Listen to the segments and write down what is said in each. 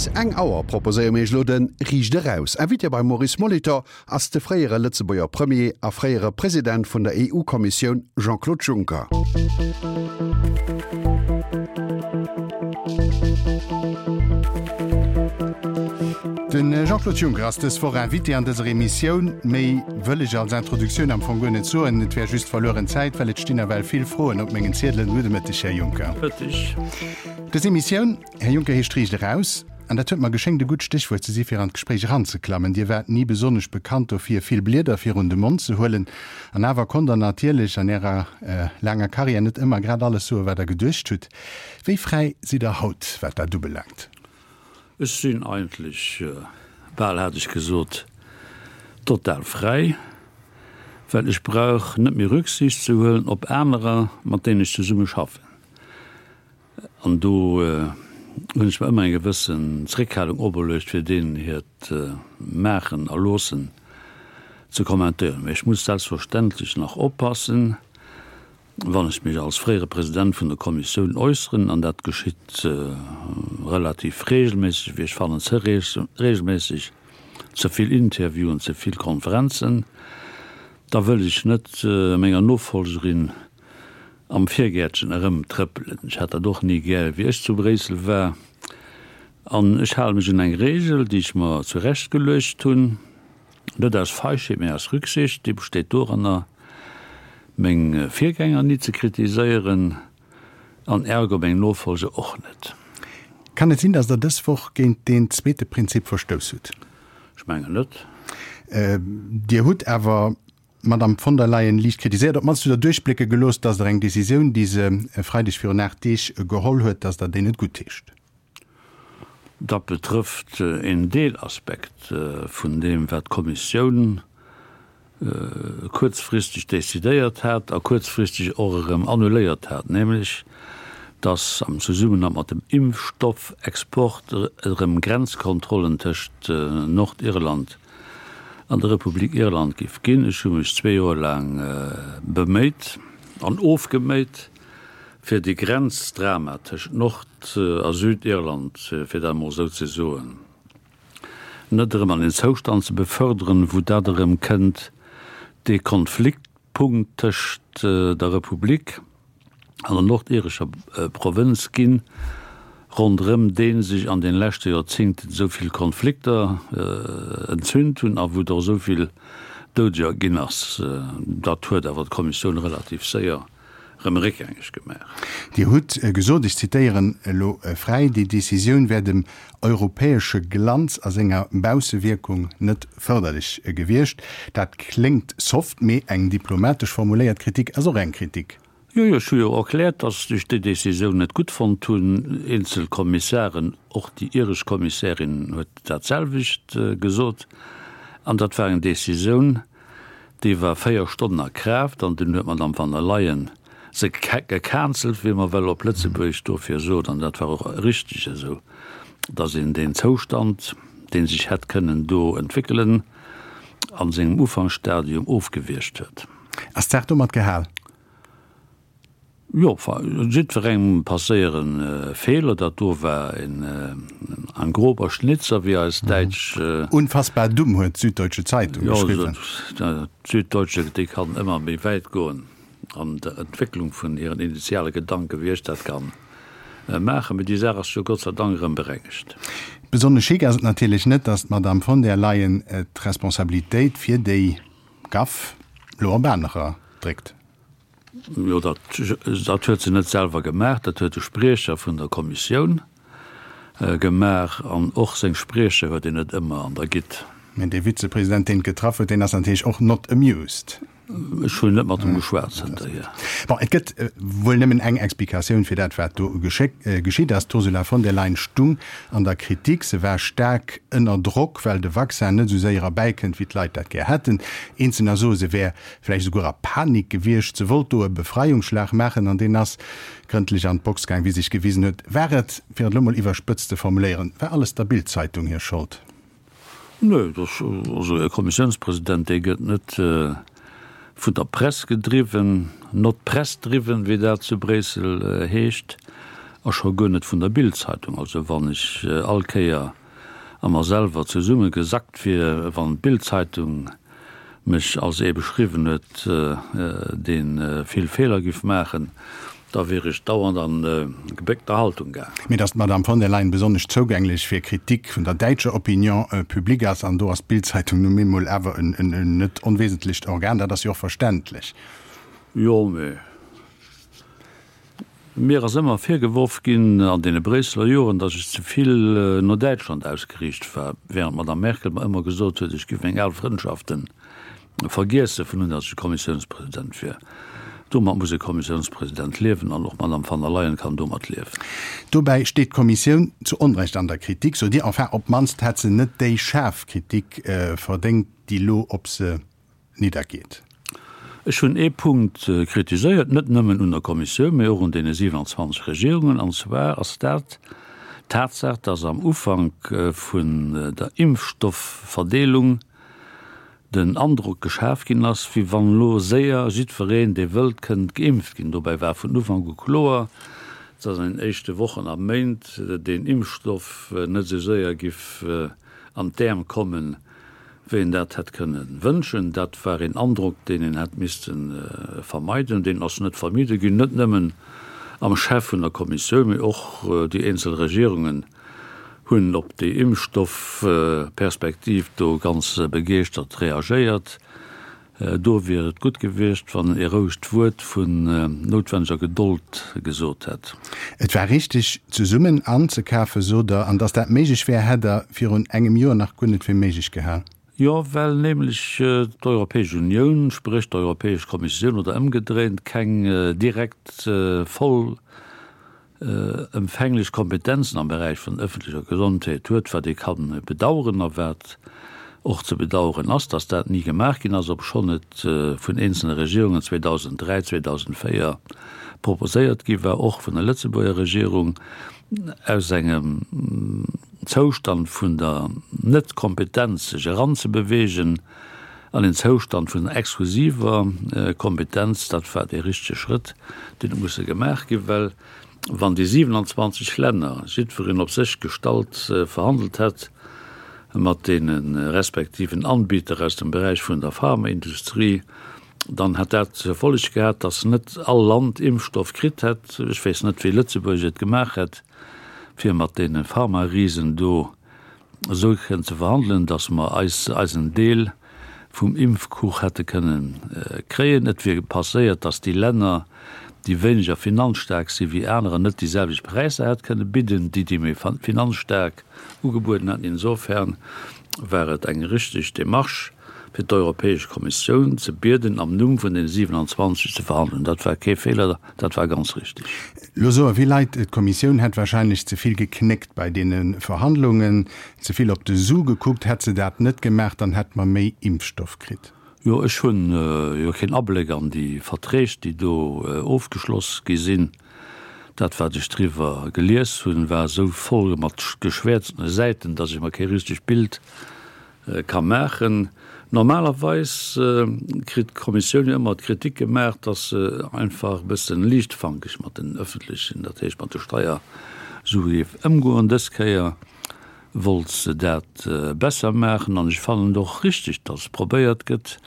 Bis eng Auer proposéiere mir iech elo de Riicht Eraus. Invité beim Maurice Molitor ass de fréiere Lëtzebuerger Premier a fréiere President vun der EU-Kommissioun Jean-Claude Juncker. De Jean-Claude Juncker ass dës Woch Invité an dëser Emissioun. Méi wëll ech als Introduktioun am Fong guer net soen. Et wär just verlueren Zäit, well et stinn nawell vill Froen op mengen Ziedelen. Gudde Mëtteg, Här Juncker. Mëtteg. Dës Emissioun, Här Juncker, heescht Riicht eraus. An dat huet mer geschéngt e gutt Stéchwuert ze si fir an d'Gespréich eranzeklammen. Dir waart ni besonnesch bekannt dofir, vill Blieder virun de Mond ze huelen. An awer konnt Der natierlech an Ärer laanger Karriär net ëmmer grad alles soen, wat Der geduecht hutt. Wéi fräi sidd Der haut, wat dat ubelaangt? Ech sinn eigentlech, bal hat ech gesot, total fräi, well ech brauch net méi Rücksicht ze huelen op anerer, mat deenen ech zesumme schaffen. An do hunn ech mer ëmmer eng gewëssen Zréckhalung operluecht, fir deenen hiert Maachen a Loossen ze kommentéieren. Mä ech muss selbstverständlech nach oppassen, wann ech mech als fréiere President vun der Kommissioun äusseren, an dat geschitt relativ regelméisseg, wéi ech fannen, ze regelméisseg, ze vill Interviewen, ze vill Konferenzen, da wëll ech net menger Nofolgerin am Virgäertchen erëmtrëppelen. Ech hat dat och ni gär, wéi ech zu Bréissel war. An ech hale mech un eng Regel, déi ech mer zurecht geluecht hunn, net aus Feigheet, mä aus Rücksicht, déi besteet doranner, meng Virgänger ni ze kritiséieren an ergo meng Nofolger och net. Kann et sinn, datt Der dës Woch géint deen zweete Prinzip verstouss hutt? Ech mengen net. Dir hutt awer d'Madame von der Leyen liicht kritiséiert, op d'mannst hutt Der duerchblécke gelooss, datt Der eng Decisioun, déi se e Freideg virun 8 Deeg geholl huet, datt Der déi net guttheescht. Dat betrëfft een Deelaspekt vun deem, wat d'Kommissioun kuerzfristeg decidéiert hat a kuerzfristeg och erëm annuléiert hat, nämlech datt am Zesummenhang mat dem Impfstoffexport erëm Grenzkontrollen tëscht Nordirland an der Republik Irland giff ginn. Ech hu mech zwee Joer laang beméit an ofgeméit, fir dee Grenzdrama tëschent Nord a Südirland, fir dat emol esou ze soen, net erëm an een Zoustand ze beförderen, wou dat erëm kënnt, dee Konfliktpunkt tëschent der Republik an der nordirescher Provënz ginn, ronderëm dee sech an den leschte Joerzéngten esou vill Konflikter entzünt hunn a wou et och esou vill Doudeger ginn ass. Dat huet awer d'Kommissioun relativ séier erëm réckgängeg gemaach. Dir hutt gesot, ech zitéieren elo fräi, Déi Decisioun wär dem europäesche Glanz a senger Baussewierkung net fërderlech gewiescht. Dat kléngt soft, mee eng diplomatesch formuléiert Kritik ass och eng Kritik. Jo, jo, ech hu jo erkläert, datt ech déi Decisioun net gutt fonnt hunn. Eenzel Kommissaren, och déi iresch Kommissärin huet dat selwecht gesot. An dat war eng Decisioun, déi war 4 Stonnen a Kraaft an dunn huet d'Madame van der Leyen se gecancelt, wéi mer well op Lëtzebuergesch dofir sot, an dat war och richteg esou, datt een deen Zoustand, dee sech hätt kënnen do entwéckelen, a sengem Ufanksstadium ofgewiergt huet. Ass d'Saach domat gehal? Jo, jiddwerengem passéiere Feeler. Dat do war en ein grober Schnitzer, wéi eis däitsch. Unfassbar dumm, huet d'Süddeutsche Zeitung geschriwwen. Jo, d'Süddeutsche, déi kann ëmmer méi wäit goen an der Entwécklung vun hiren initiale Gedanken, wéi ech dat ka maachen. Mee déi Saach ass jo Gott sei Dank erëm berengegt. Besonnesch chic ass et natierlech net, datt d'Madame von der Leyen d'Responsabilitéit fir déi Gaff elo op anerer dréckt. Jo, dat, dat huet se net selwer gemaach, dat huet de Spriecher vun der Kommissioun gemaach. An och seng Spriecher huet een net ëmmer an der Gitt. Mä dee Vizepresident, deen et getraff huet, deen ass natierlech och not amused. Ech hunn net mat em geschwat zënterhier. Bon, et gëtt wuel nëmmen eng Explikatioun fir dat, wat do geschitt ass. D'Ursula von der Leyen stung an der Kritik. Se war staark ënner Drock, well de Vaccin net esou séier erbäikënnt, wéi d'Leit dat gär hätten. Eenzelner soe, se wär vläicht esouguer a Panik gewiescht. Se wollt do e Befreiungsschlag maachen an deen ass grëndlech an d'Box gaang, wéi sech gewisen huet. War et, fir et elo mol iwwerspëtzt ze formuléieren, war alles der Bild-Zeitung hir Schold? Nö, dat, also e Kommissiounspresident, dee gëtt net vun der Press gedriwwen, not press driven, wéi dat zu Bréissel heescht. A scho guer net vun der Bild-Zeitung. Also wann ech all Kéier a mer selwer zesumme gesackt wier, wann d'Bild-Zeitung mech als ee beschriwwen huet, dee vill Feeler giff maachen, da wier ech dauernd an gebéckter Haltung gaang. Mee datt d'Madame von der Leyen besonnesch zougänglech fir Kritik vun der däitscher Opinion publique ass, an do ass d'Bild-Zeitung nu emol awer en net onwesentlecht Organ, dat ass jo och verständlech. Jo, mee Mir ass ëmmer virgeworf ginn an deene Bréisseler Joren, datt ech ze vill no Däitschland ausgeriicht war, während d'Madame Merkel mer ëmmer gesot huet, ech giff meng al Frëndschafte vergiesse vun un datt ech Kommissiounspresident wier. Domat muss e Kommissiounspresident liewen an och d'Madame van der Leyen kann domat liewen. Dobäi steet d'Kommissioun zu Onrecht an der Kritik, sot Dir. Enfin, op d'mannst hätt se net déi schaarf Kritik verdéngt, déi lo op se niddergeet. Ech hunn ee Punkt kritiséiert, net nëmmen un der Kommissioun, mä och un deene 27 Regierungen, an zwar ass dat d'Tatsaach, dass am Ufank vun der Impfstoffverdeelung den Androck geschaf ginn ass, wéi wann elo séier jiddwereen, dee wëllt, kënnt geimpft ginn. Dobäi war vun Ufank u kloer, dass an den éischte Wochen a Méint deen Impfstoff net esou séier giff an d'Äerm kommen, wéi een dat hätt kënne wënschen. Dat war een Androck, deen een hätt misste vermeiden. Deen ass net vermidde ginn, net nëmmen am Chef vun der Kommissioun, mee och déi eenzel Regierungen hunn op déi Impfstoffperspektiv do ganz begeeschtert reagéiert. Do wier et gutt gewiescht, wann en ee rouegt Wuert vun noutwenneger Gedold gesot hätt. Et war richteg, zesummen anzekafen, sot Der. An datt dat méiglech wär, hätt Der virun engem Joer nach guer net fir méiglech gehal. Jo, well nämlech d'Europäesch Unioun, spréch d'Europäesch Kommissioun oder ëmgedréint, keng direkt voll ëmfänglech Kompetenzen am Beräich vun ëffentlecher Gesondheet huet, wat ee ka bedauern a wat och ze bedauern ass, dass dat ni gemaach ginn ass, obschonn et vun eenzelne Regierungen 2003, 2004 proposéiert gi war, och vun der Lëtzebuerger Regierung, aus engem Zoustand vun der Net-Kompetenz sech eranzebewegen an een Zoustand vun exklusiver Kompetenz, dat war dee richtege Schrëtt, deen huet musse gemaach ginn, well wann déi 27 Länner jiddwereen op sech gestallt verhandelt hätt mat deene respektiven Anbieter aus dem Beräich vun der Pharmaindustrie, dann hätt dat zur Folleg gehat, datt net all Land Impfstoff kritt hätt. Ech weess net, wéi Lëtzebuerg et gemaach hätt, fir mat deene Pharmarisen do esou kënnen ze verhandelen, datt mer eis eisen Deel vum Impfkuch hätte kënnen kréien. Et wier passéiert, datt déi Länner, déi wéineger finanzstaark si wéi anerer, net déi selwecht Präisser hätt kënne bidden, déi déi méi finanzstaark ugebueden hätten. Insofern war et eng richteg Démarche, fir d'Europäesch Kommissioun ze bieden, am Numm vun den 27 ze verhandelen. Dat war kee Feeler, dat war ganz richtig. Lo soe vill Leit, d'Kommissioun hätt wahrscheinlech ze vill geknéckt bei deene Verhandlungen, ze vill op de Su gekuckt. Hätt se dat net gemaach, dann hätt mer méi Impfstoff kritt. Jo, ech hunn jo keen Abléck an déi Verträg, déi do ofgeschloss gi sinn. Dat, wat ech driwwer gelies hunn, war esou voll mat geschwäerztene Säiten, datt ech mer kee richtegt Bild ka maachen. Normalerweis kritt d'Kommissioun jo ëmmer d'Kritik gemaach, dass se einfach e bësse liichtfankeg mat den öffentlechen, dat heescht mat de Steiersue géif ëmgoen. Dës Kéier wollt se dat besser maachen an ech fannen et och richtig, dass probéiert gëtt,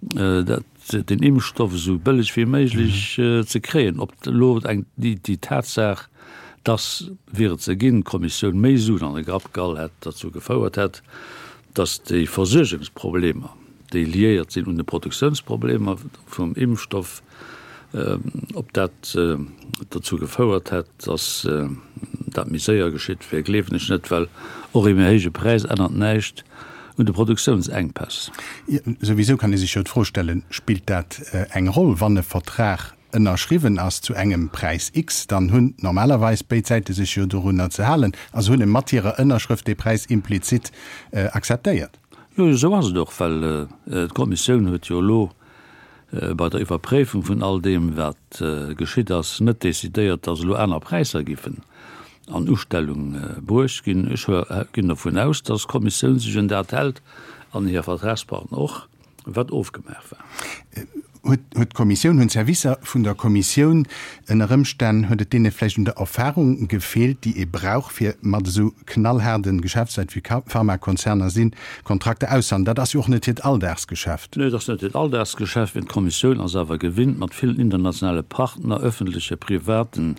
dat, den Impfstoff esou bëlleg wéi méiglech ze kréien. Ob elo eng, déi Tatsaach, dass, wier et se ginn, d'Kommissioun méi Suen an de Grapp gehall hätt, derzou gefouert hätt, dass déi Versuergungsproblemer, déi liéiert sinn un de Produktiounsproblemer vum Impfstoff, ob dat derzou gefouert hätt, dass dat méi séier geschitt wier, gleewen ech net, well och ee méi héije Präis ännert näischt un de Produktiounsengpäss. Souwisou kann ee sech jo d'Fro stellen, Spillt dat eng Roll, wann e Vertrag ënnerschriwwen ass zu engem Präis X, dann hunn normalerweis béid Säite sech jo dorunner ze halen a se hunn e mat hirer Ënnerschrëft dee Präis implizit akzeptéiert. Jo, esou ass et och, well d'Kommissioun huet jo elo bei der Iwwerpréifung vun all deem, wat geschitt ass, net decidéiert, datt elo aner Präisser giffen an Ustellung bruecht ginn. Ech ginn dovun aus, datt d'Kommissioun sech un dat hält an hir Vertragspartner och. Wat ofgemaach war. Huet d'Kommissioun, hunn d'Servicer vun der Kommissioun ënner Ëmstänn, huet et deene vläicht un der Erfahrung gefeelt, déi ee brauch, fir mat esou knallhaarde Geschäftsleit wéi Pharmakonzerner sinn, Kontrakter auszehandeln? Dat ass jo och net hiert Alldagsgeschäft. Nee, et ass net hiert Alldagsgeschäft, mee d'Kommissioun ass awer gewinnt, mat villen internationale Partner, öffentleche, privaten,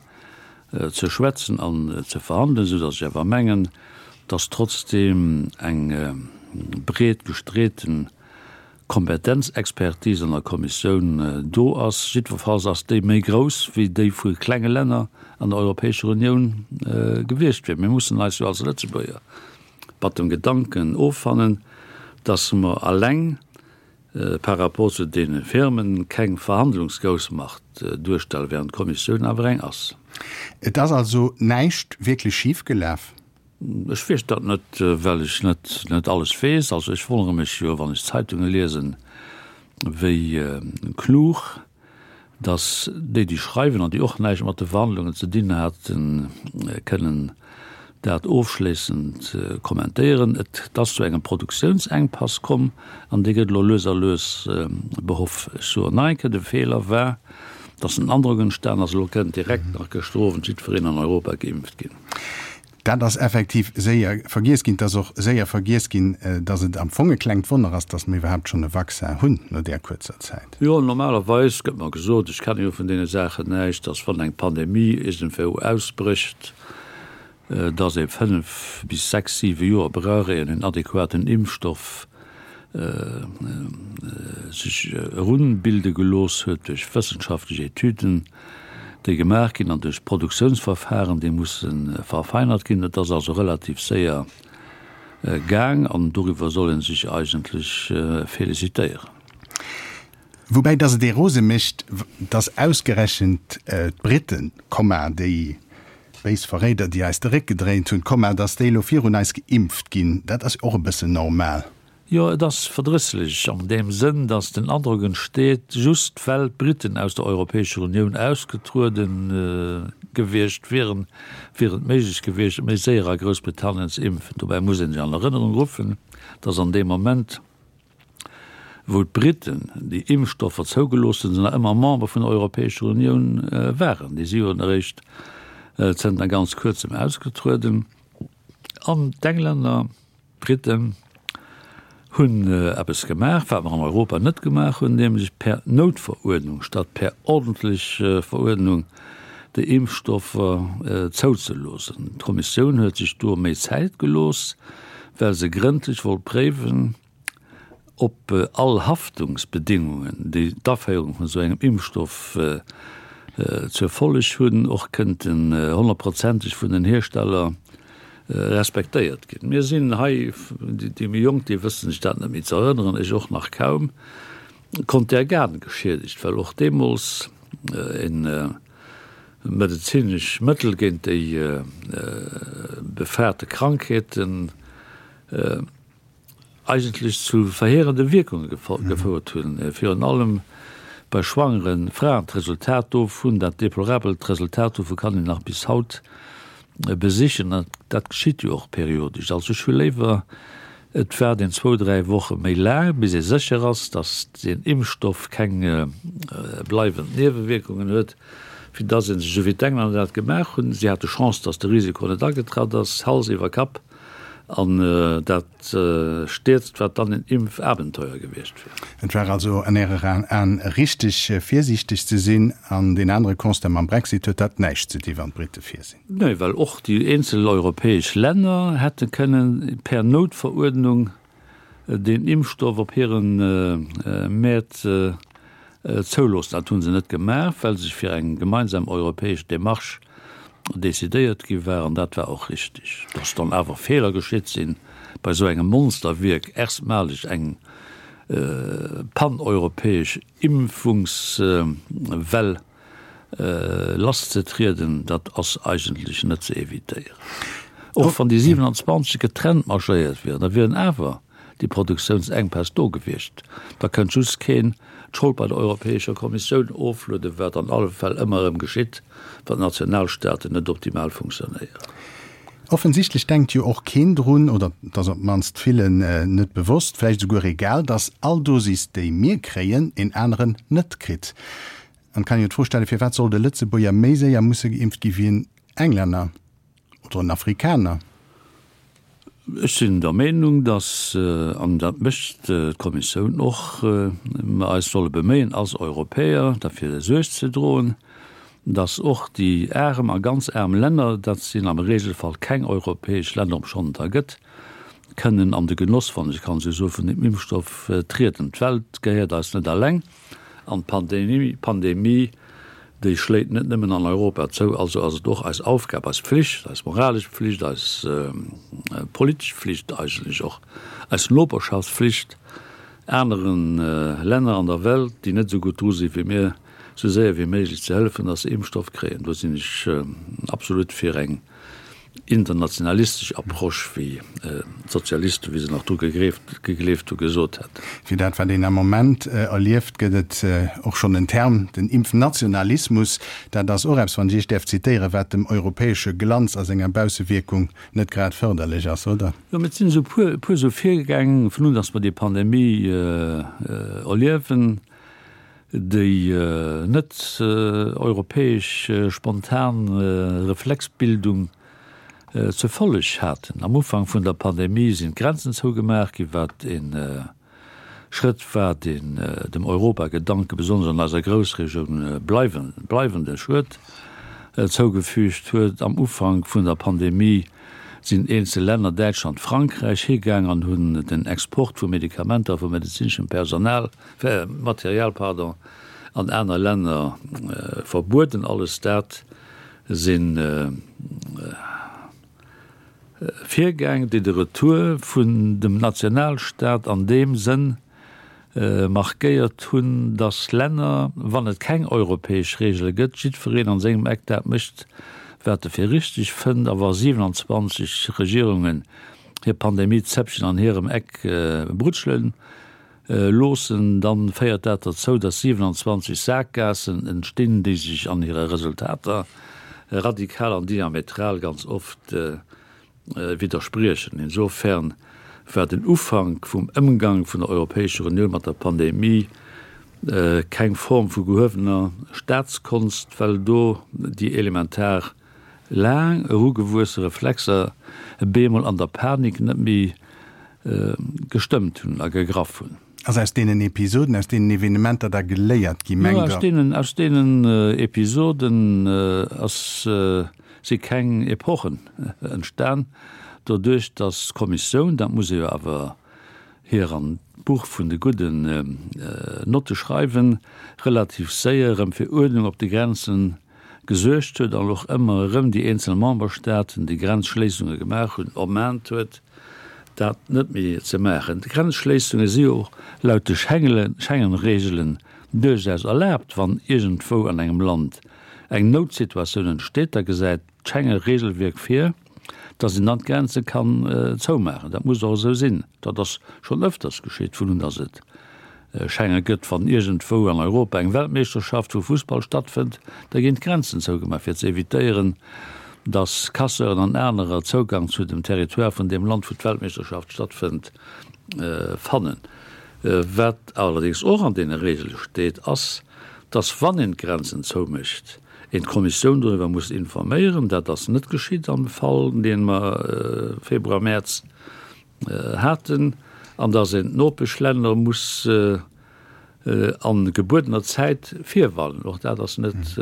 ze schwätzen an ze verhandelen, esou datt ech awer mengen, datt trotzdeem eng breet gestreeten Kompetenzexpertise an der Kommissioun do ass. Jiddwerfalls ass déi méi grouss wéi déi vu klenge Länner an der Europäescher Unioun gewiescht wier. Mir mussen eis jo als Lëtzebuerger mat dem Gedanken offannen, dass mer alleng par rapport zu deene Firmen keng Verhandlungsgroussmacht duerstellen, während d'Kommissioun awer eng ass. Et ass also näischt wierklech schifgelaf? Ech weess dat net, well ech net net alles weess. Also ech wonnere mech jo, wann ech d'Zeitunge liesen, wéi klug datt déi, déi schreiwen an déi och näischt mat de Verhandlungen ze dinn haten, kënnen dat ofschléissend kommentéieren. Et ass zu engem Produktiounsenkpass komm an dee gëtt elo lues a lues behoff. Ech soen nach eng Kéier, de Feeler war, datt den Androck entstan ass, elo kënnt direkt nach gëschter Owend jiddwereen an Europa geimpft ginn. Dat ass effektiv séier vergiess ginn. Et ass och séier vergiess ginn, datt et am Fong e klengt Wonner ass, datt mer iwwerhaapt schonn e Vaccin hunn no där kuerzer Zäit. Jo, normalerweis gëtt mer gesot, ech kenne jo vun deene Saachen näischt, datt wann eng Pandemie iergendwou ausbrécht, datt ee 5 bis 6, 7 Joer brauch, éier een en adequaten Impfstoff sech erunbilde gelooss huet duerch wëssenschaftlech Etüden, déi gemaach ginn an duerch Produktiounsverfahren, déi musse verfeinert ginn. Et ass also relativ séier gaang an doriwwer soll ee sech eigentlech félicitéieren. Woubäi dass et ee rose mécht, dass ausgerechent d'Briten, Komma, déi béis Verréider, déi eis de Réck gedréint hunn, Komma, dass déi elo virun eis geimpft ginn, dat ass och e bëssen normal. Jo, et ass verdrësslech an deem Sënn, datt den Androck entsteet, just well d'Briten aus der Europäescher Unioun ausgetruede gewiescht wieren, wier et méiglech gewiescht, méi séier a Groussbritannien ze impfen. Dobäi muss ee sech an Erënnerung ruffen, datt an deem Moment, wou d'Briten déi Impfstoffer zougelooss hunn, se nach ëmmer Member vun der Europäescher Unioun waren. Déi si jo eréischt zënter ganz Kuerzem ausgetrueden. An d'Englänner D'Briten hunn eppes gemaach, wat mer an Europa net gemaach hunn, nämlech per Noutveruerdnung statt per ordentlech Veruerdnung déi Impfstoffer zouzeloossen. D'Kommissioun huet sech do méi Zäit gelooss, well se grëndlech wollt préiwen, ob all Haftungsbedingungen, déi d'Aféierung vun esou engem Impfstoff zur Folleg hunn, och kënnten honnertprozenteg vun den Hiersteller respektéiert ginn. Mir sinn hei, déi méi Jonk, déi wëssen sech dat net méi ze erënneren, ech och nach kaum, Contergan geschiedegt, well och deemools e medezinesch Mëttel géint déi befaarte Krankheeten eigentlech zu verheerende Wierkunge gefouert hunn, virun allem bei schwangere Fraen. D'Resultat dovun, dat deplorabelt Resultat dovu kann een nach bis haut besichen, an dat geschitt jo och periodesch. Also ech hu léiwer, et waart een zwou, dräi Woche méi laang, bis ee sécher ass, datt deen Impfstoff keng bleiwend Niewewierkungen huet, wéi datt ee sech, esou wéi d'Englänner dat gemaach hunn, si hate Chance, datt de Risiko net agetratt ass, Hals iwwer Kapp An dat stierzt, wat dann en Impfabenteuer gewiescht wier. Et war also an Ärer Aen richteg, virsiichteg ze sinn. An deen anere Constat, mam Brexit huet dat näischt ze di wann d'Brite vir sinn. Nee, well och déi eenzel europäesch Länner hätte kënnen per Noutveruerdnung deen Impfstoff op hire Mäert zouloossen. Dat hu se net gemaach, well sech fir eng gemeinsam europäesch Demarche decidéiert gi war, an dat war och richtig. Dass dann awer Feeler geschitt sinn bei esou engem Monsterwierk, erstmaleg eng paneuropäesch Impfungswell lasszetrieden, dat ass eigentlech net ze evitéieren. Och wann déi 27 getrennt marschéiert wieren, da wieren awer déi Produktiounsenkpäss do gewiescht. Da kënnt just keen d'Schold bei der Europäescher Kommissioun oflueden, wat an alle Fäll ëmmer erëm geschitt, wann d'Nationalstaaten net optimal funktionéieren. Offensichtlech denkt jo och keen drun, oder et ass op d'mannst villen net bewosst, vläicht esouguer egal, datt all Dosis, déi mir kréien, een aneren net kritt. An et kann een jo d'Fro stellen, Firwat sollt e Lëtzebuerger méi séier musse geimpft gi wéi en Englänner oder en Afrikaner? Ech sinn der Meenung, datt, an dat mécht d'Kommissioun och, mer eis solle beméien als Europäer derfir Suerg ze droen, datt och déi arem a ganz aarm Länner, dat sinn am Regelfall keng europäesch Länner, obschonn et der gëtt, kënnen an de Genoss, wann ech kann esou soen, vun deem Impfstoff trieden. D'Welt gehéiert eis net alleng. An d'Pandemie, déi schléit net nëmmen an Europa zou. Also ass et och eis Aufgab, eis Pflicht, eis moralesch Pflicht, eis politesch Pflicht eigentlech och, eis Noperschaftspflicht anere Länner an der Welt, déi net esou gutt dru si wéi mir, esou séier wéi méiglech ze hëllefen, dass se Impfstoff kréien. Do sinn ech absolut fir eng internationalistesch Approche, wéi d'Sozialisten, wéi se nach dru gegleeft hu, gesot hätten. Fir dat, wat een am Moment erlieft, gëtt et och schonn en Term, den Impfnationalismus. Dat ass och eppes, wann ech Iech däerf zitéieren, wat dem europäesche Glanz a senger Baussewierkung net grad fërderlech ass, oder? Jo, mä et sinn esou e puer esou Virgäng, vun un datt mer déi Pandemie erliewen, déi net europäesch spontan Reflexbildung zur Folleg haten. Am Ufank vun der Pandemie sinn d'Grenzen zougemaach ginn, wat e Schrëtt war, deen dem Europagedanke besonnesch an eiser Groussregioun bleiwende Schued zougefügt huet. Am Ufank vun der Pandemie sinn eenzel Länner, Däitschland, Frankräich, higaang an hunn den Export vu Medikamenter a vu medezineschem Personal, Material, pardon, an aner Länner verbueden. Alles dat si Virgäng, déi de Retour vun dem Nationalstaat an deem Sënn markéiert hunn, datt Länner, wann et keng europäesch Regele gëtt, jiddwereen an sengem Eck dat mécht, wat e fir richteg fënnt. A wa 27 Regierungen hir Pandemie-Zäppchen an hirem Eck brutschelen, Loossen, dann féiert dat derzou, dass 27 Saakgaassen entstinn, déi sech an hire Resultater radikal an diametral ganz oft widderspriechen. Insofern war den Ufank vum Ëmgang vun der Europäescher Unioun mat der Pandemie keng Form vu gehuewener Staatskonst, well do déi elementar Laang erugewuesse Reflexer bemol an der Panik net méi gestëmmt hunn a gegraff hunn. Ass aus deenen Episoden, aus deenen Evenementer da geléiert gi, mengt Der? Jo, aus deenen, aus deenen Episoden ass, si keng Epochen entstan, doduerch datt d'Kommissioun, dat muss ee jo awer hir an d'Buch vun de gudden Notte schreiwen, relativ séier erëm fir Uerdnung op de Grenzen gesuergt huet an och ëmmer erëm déi eenzel Memberstaaten, déi Grenzschléissunge gemaach hunn, ermahnt huet, dat net méi ze maachen. D'Grenzschléissunge si jo och laut de Schengen-Reegelen duerchaus erlaabt, wann iergendwou an engem Land eng Noutsituatioun entsteet, da gesäit d'Schenge-Reegelwierk vir, datt een dann d'Grenze kann zoumaachen. Dat muss och esou sinn. Dat ass schonn ëfters geschitt, vun un datt et Schenge gëtt. Wann iergendwou an Europa eng Weltmeeschterschaft vu Fussball stattfënnt, da ginn d'Grenzen zougemaach, fir ze evitéieren, datt Casseuren an anerer Zougang zu dem Territoire vun deem Land, wou d'Weltmeeschterschaft stattfënnt, fannen. Wat allerdéngs och an deene Reegele steet, ass, datt wann een d'Grenzen zoumécht, een d'Kommissioun doriwwer muss informéieren. Dat ass net geschitt am Fall, dee mer Februar, Mäerz haten, an datt een d'Nopeschlänner muss a gebuedener Zäit virwarnen. Och dat ass net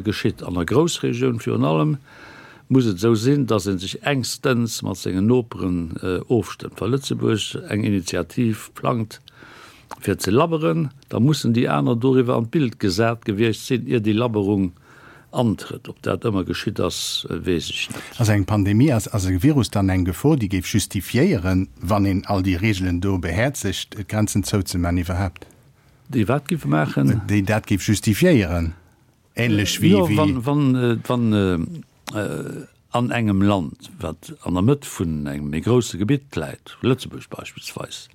geschitt. An der Groussregioun virun allem muss et esou sinn, datt ee sech engstens mat sengen Noperen ofstëmmt. Wa Lëtzebuerg eng Initiativ plangt, fir ze labberen, da mussen déi aner doriwwer an d'Bild gesat gewiescht sinn, ier déi Labberung antrëtt. Ob dat ëmmer geschitt ass, weess ech net. Ass eng Pandemie, ass e Virus dann eng Gefor, déi géif justifiéieren, wann een all déi Reegelen do behäerzegt, d'Grenzen zouzeman iwwerhaapt? Déi wat géife maachen? Déi dat géif justifiéieren, ähnlech wéi. Jo, wann, wann an engem Land, wat an der Mëtt vun engem méi grousse Gebitt läit, Lëtzebuerg beispillsweis,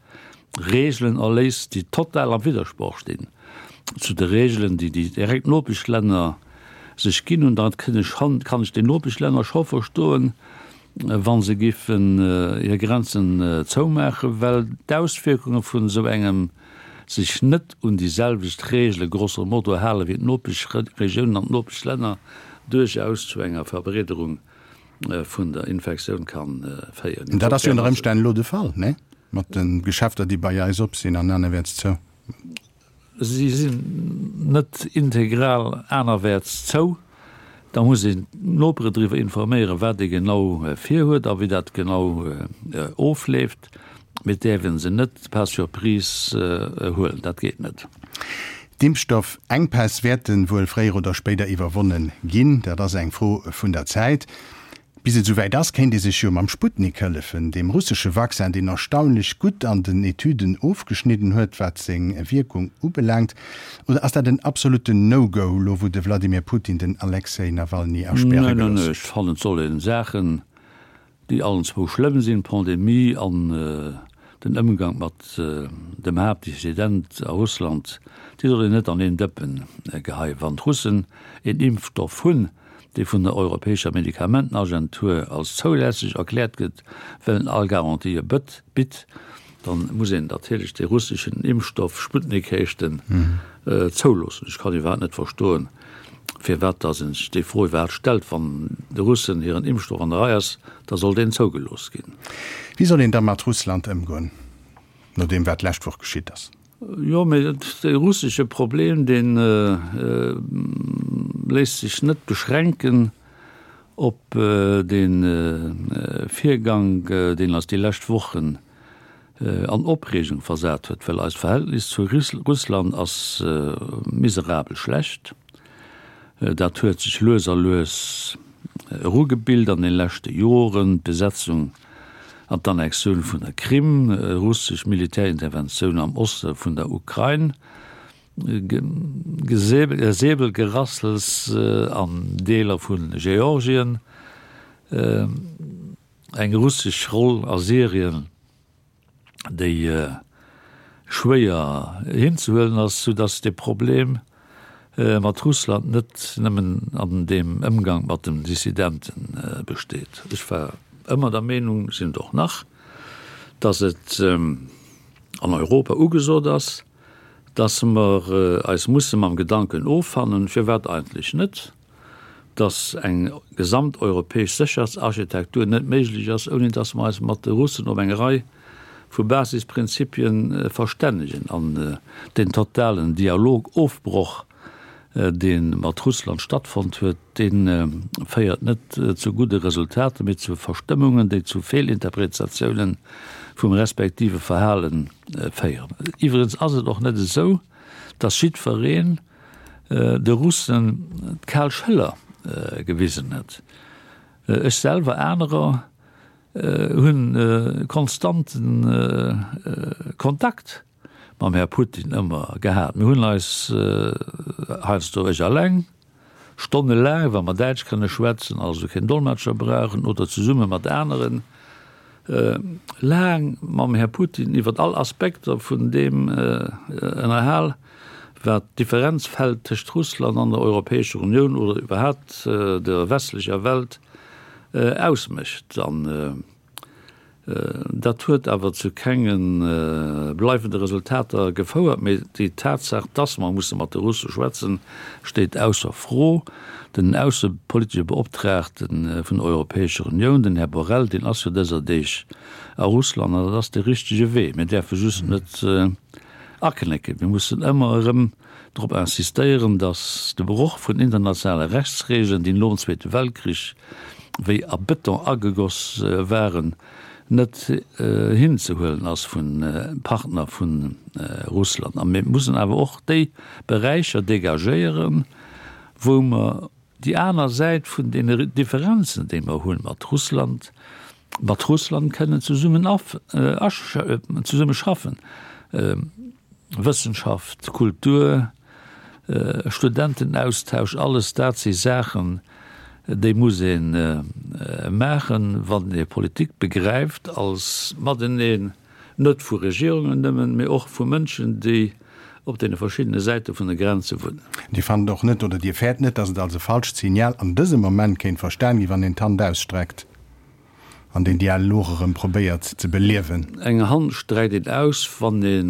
Reegelen erléisst, déi total am Widdersproch stinn zu de Reegelen, déi déi direkt Nopeschlänner sech ginn hunn, da kann ech den Nopeschlänner scho verstoen, wa se giffen hir Grenzen zoumaachen, well d'Auswierkunge vun esou engem sech net un déi selwecht Regele grosso modo hale wéi d'Nopeschregiounen an d'Nopeschlänner, duerchaus zu enger Verbreederung vun der Infektioun ka féieren. Dat ass jo ënner Ëmstänn elo de Fall, nee? Mat de Geschäfter, déi bei eis op sinn an anerwäerts zou. Si sinn net integral anerwäerts zou. Da muss een d'Nopere driwwer informéieren, wat ee genau virhuet a wéi dat genau ofleeft. Mee et däerf ee se net par surprise huelen, dat geet net. D'Impfstoffenkpäss wäerte wuel fréier oder spéider iwwerwonne ginn. Dat ass eng Fro vun der Zäit. Bis et esouwäit ass, kéint ee sech jo mam Sputnik hëllefen, deem russesche Vaccin, deen erstaunlech gutt an den Etüden ofgeschnidden huet, wat seng Wierkung ubelaangt. Oder ass dat en absolutten No-Go, lo wou de Wladimir Putin den Alexej Nawalny aspäre gelooss huet? Neen, ech fannen, et soll ee Saachen, déi allen zwou schlëmm sinn, d'Pandemie an den Ëmgang mat dem Haaptdissident a Russland, déi soll een net an een Dëppen geheien. Wann d'Russen een Impfstoff hunn, dee vun der Europäescher Medikamentenagentur als zoulässeg erkläert gëtt, well en all Garantië bitt, da muss een natierlech dee russeschen Impfstoff, Sputnik heescht en, zouloossen. Ech kann iwwerhaapt net verstoen, firwat datt ee sech déi Fro iwwerhaapt stellt. Wann de Russen hiren Impfstoff an der Rei ass, da soll deen zougelooss ginn. Wéi soll een da mat Russland ëmgoen, no deem wat d'lescht Woch geschitt ass? Jo, mee de russesche Problem, dee léisst sech net beschränken op dee Virgang, deen eis déi lescht Wochen an Opreegung versat huet, well eist Verhältnis zu Russland ass miserabel schlecht. Dat huet sech lues a lues erugebilt an de leschte Joren, d'Besetzung an d'Annexioun vun der Krim, russesch Militärinterventioun am Oste vun der Ukrain, Säbelgerassels an Deeler vu Georgien, eng russesch Roll a Syrien. déi schwéier hinzehuelen ass, soudass de Problem mat Russland net nëmmen an deem Ëmgang mat den Dissidente besteet. Ech war ëmmer der Meenung, sinn et och nach, dass et an Europa ugesot ass, dass mer eis musse mam Gedanken offannen, firwat eigentlech net, dass eng gesamteuropäesch Sécherheetsarchitektur net méiglech ass, ouni dass mer eis mat de Russen op eng Rei vu Basisprinzipien verstännegen. An deen totalen Dialogofbroch, dee mat Russland stattfonnt huet, dee féiert net zu gudde Resultater, mee zu Verstëmmungen, déi zu Feelinterpretatiounen vum respektive Verhale féieren. Iwwregens ass et och net esou, dass jiddwereen, de Russen d'kal Schëller gewisen huet. Ech selwer, anerer hunn konstanten Kontakt mam Här Putin ëmmer gehat. Mir hunn eis heiansdo, ech alleng, stonnelaang, wa mer Däitsch kënne schwätzen, also keen Dolmetscher brauchen, oder zesumme mat aneren, laang mam Här Putin iwwer all Aspekter vun deem ënnerhal, wat d'Differenzfeld tëscht Russland an der Europäescher Unioun oder iwwerhaapt der westlecher Welt ausmécht. An dat huet awer zu kenge bleiwende Resultater gefouert. Mee déi Tatsaach, dass mer musse mat de Russe schwätzen, steet ausser Fro. Den aussepolitesche Beoptraagte vun der Europäescher Unioun, den Här Borrell, deen ass jo dëser Deeg a Russland an dat ass de richtege Wee. Mir däerfe just net Aknécken. Mir mussen ëmmer erëm drop insistéieren, datt de Broch vun internationale Rechtsregeln, déi nom Zweete Weltkrich wéi a Bëton agegoss waren, net hinzehuelen ass vu Partner vu Russland. A mir mussen awer och déi Beräicher dégagéieren, wou mer Déi aner Säit vun deene Differenzen, déi mer hunn mat Russland, mat Russland kënnen zesummen zesumme schaffen, Wëssenschaft, Kultur, Studentenaustausch, alles dat si Saachen, déi muss ee maachen, wann ee Politik begräift als Mateneen. Net vu Regierungen nëmmen, mee och vu Mënschen, déi op deene verschiddene Säite vun de Grenze wunnen. Dir fannt och net, oder Dir fäert net, datt et als e falscht Signal an dësem Moment kéint verstan ginn, wann een d'Hand ausstreckt? An den Dialog erëm probéiert ze beliewen. Eng Hand streckt een aus, wann ee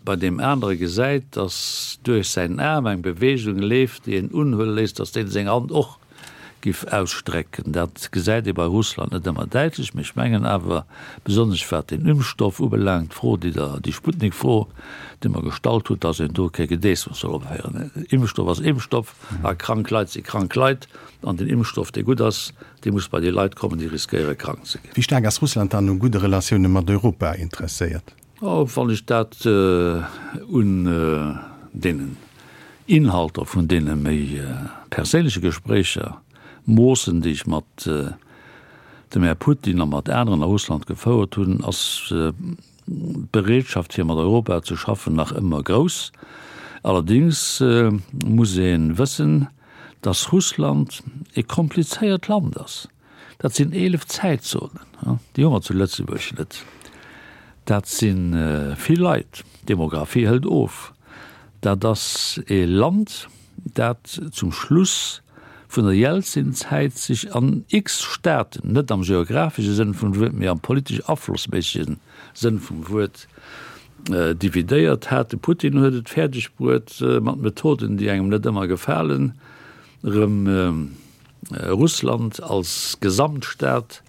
bei deem anere gesäit, datt duerch säin Aarm eng Beweegung leeft, déi een unhuele léisst, datt deen seng Hand och giff ausstrecken. Dat gesäit ee bei Russland net ëmmer däitlech, mee ech mengen awer, besonnesch wat den Impfstoff ubelaangt, d'Fro, déi Der, déi Sputnik-Fro, déi mer gestallt hutt, datt een do kee Gedeessems soll opféieren. Impfstoff ass Impfstoff a krank Leit si krank Leit an den Impfstoff, dee gutt ass, dee muss bei déi Leit kommen, déi riskéiere krank ze ginn. Wéi staark ass Russland dann u gudde Relatioune mat Europa interesséiert? Oh, wann ech dat un deenen Inhalter vun deene méi perséinleche Gespréicher moossen, déi ech mat dem Här Putin a mat aneren a Russland gefouert hunn, ass d'Bereetschaft fir mat Europa ze schaffen nach ëmmer grouss. Allerdéngs muss ee wëssen, datt Russland e komplizéiert Land ass. Dat sinn 11 Zäitzonen, déi hu mer zu Lëtzebuerg net. Dat si vill Leit, d'Demografie hëlt of. Dat ass e Land, dat zum Schluss vun der Jelzin-Zäit sech an x Staaten, net am geografesche Sënn vum Wuert, mee am politesch aflossméissege Sënn vum Wuert, dividéiert hat. De Putin huet et fäerdeg bruet, mat Methoden, déi engem net ëmmer gefalen, erëm Russland als Gesamtstaat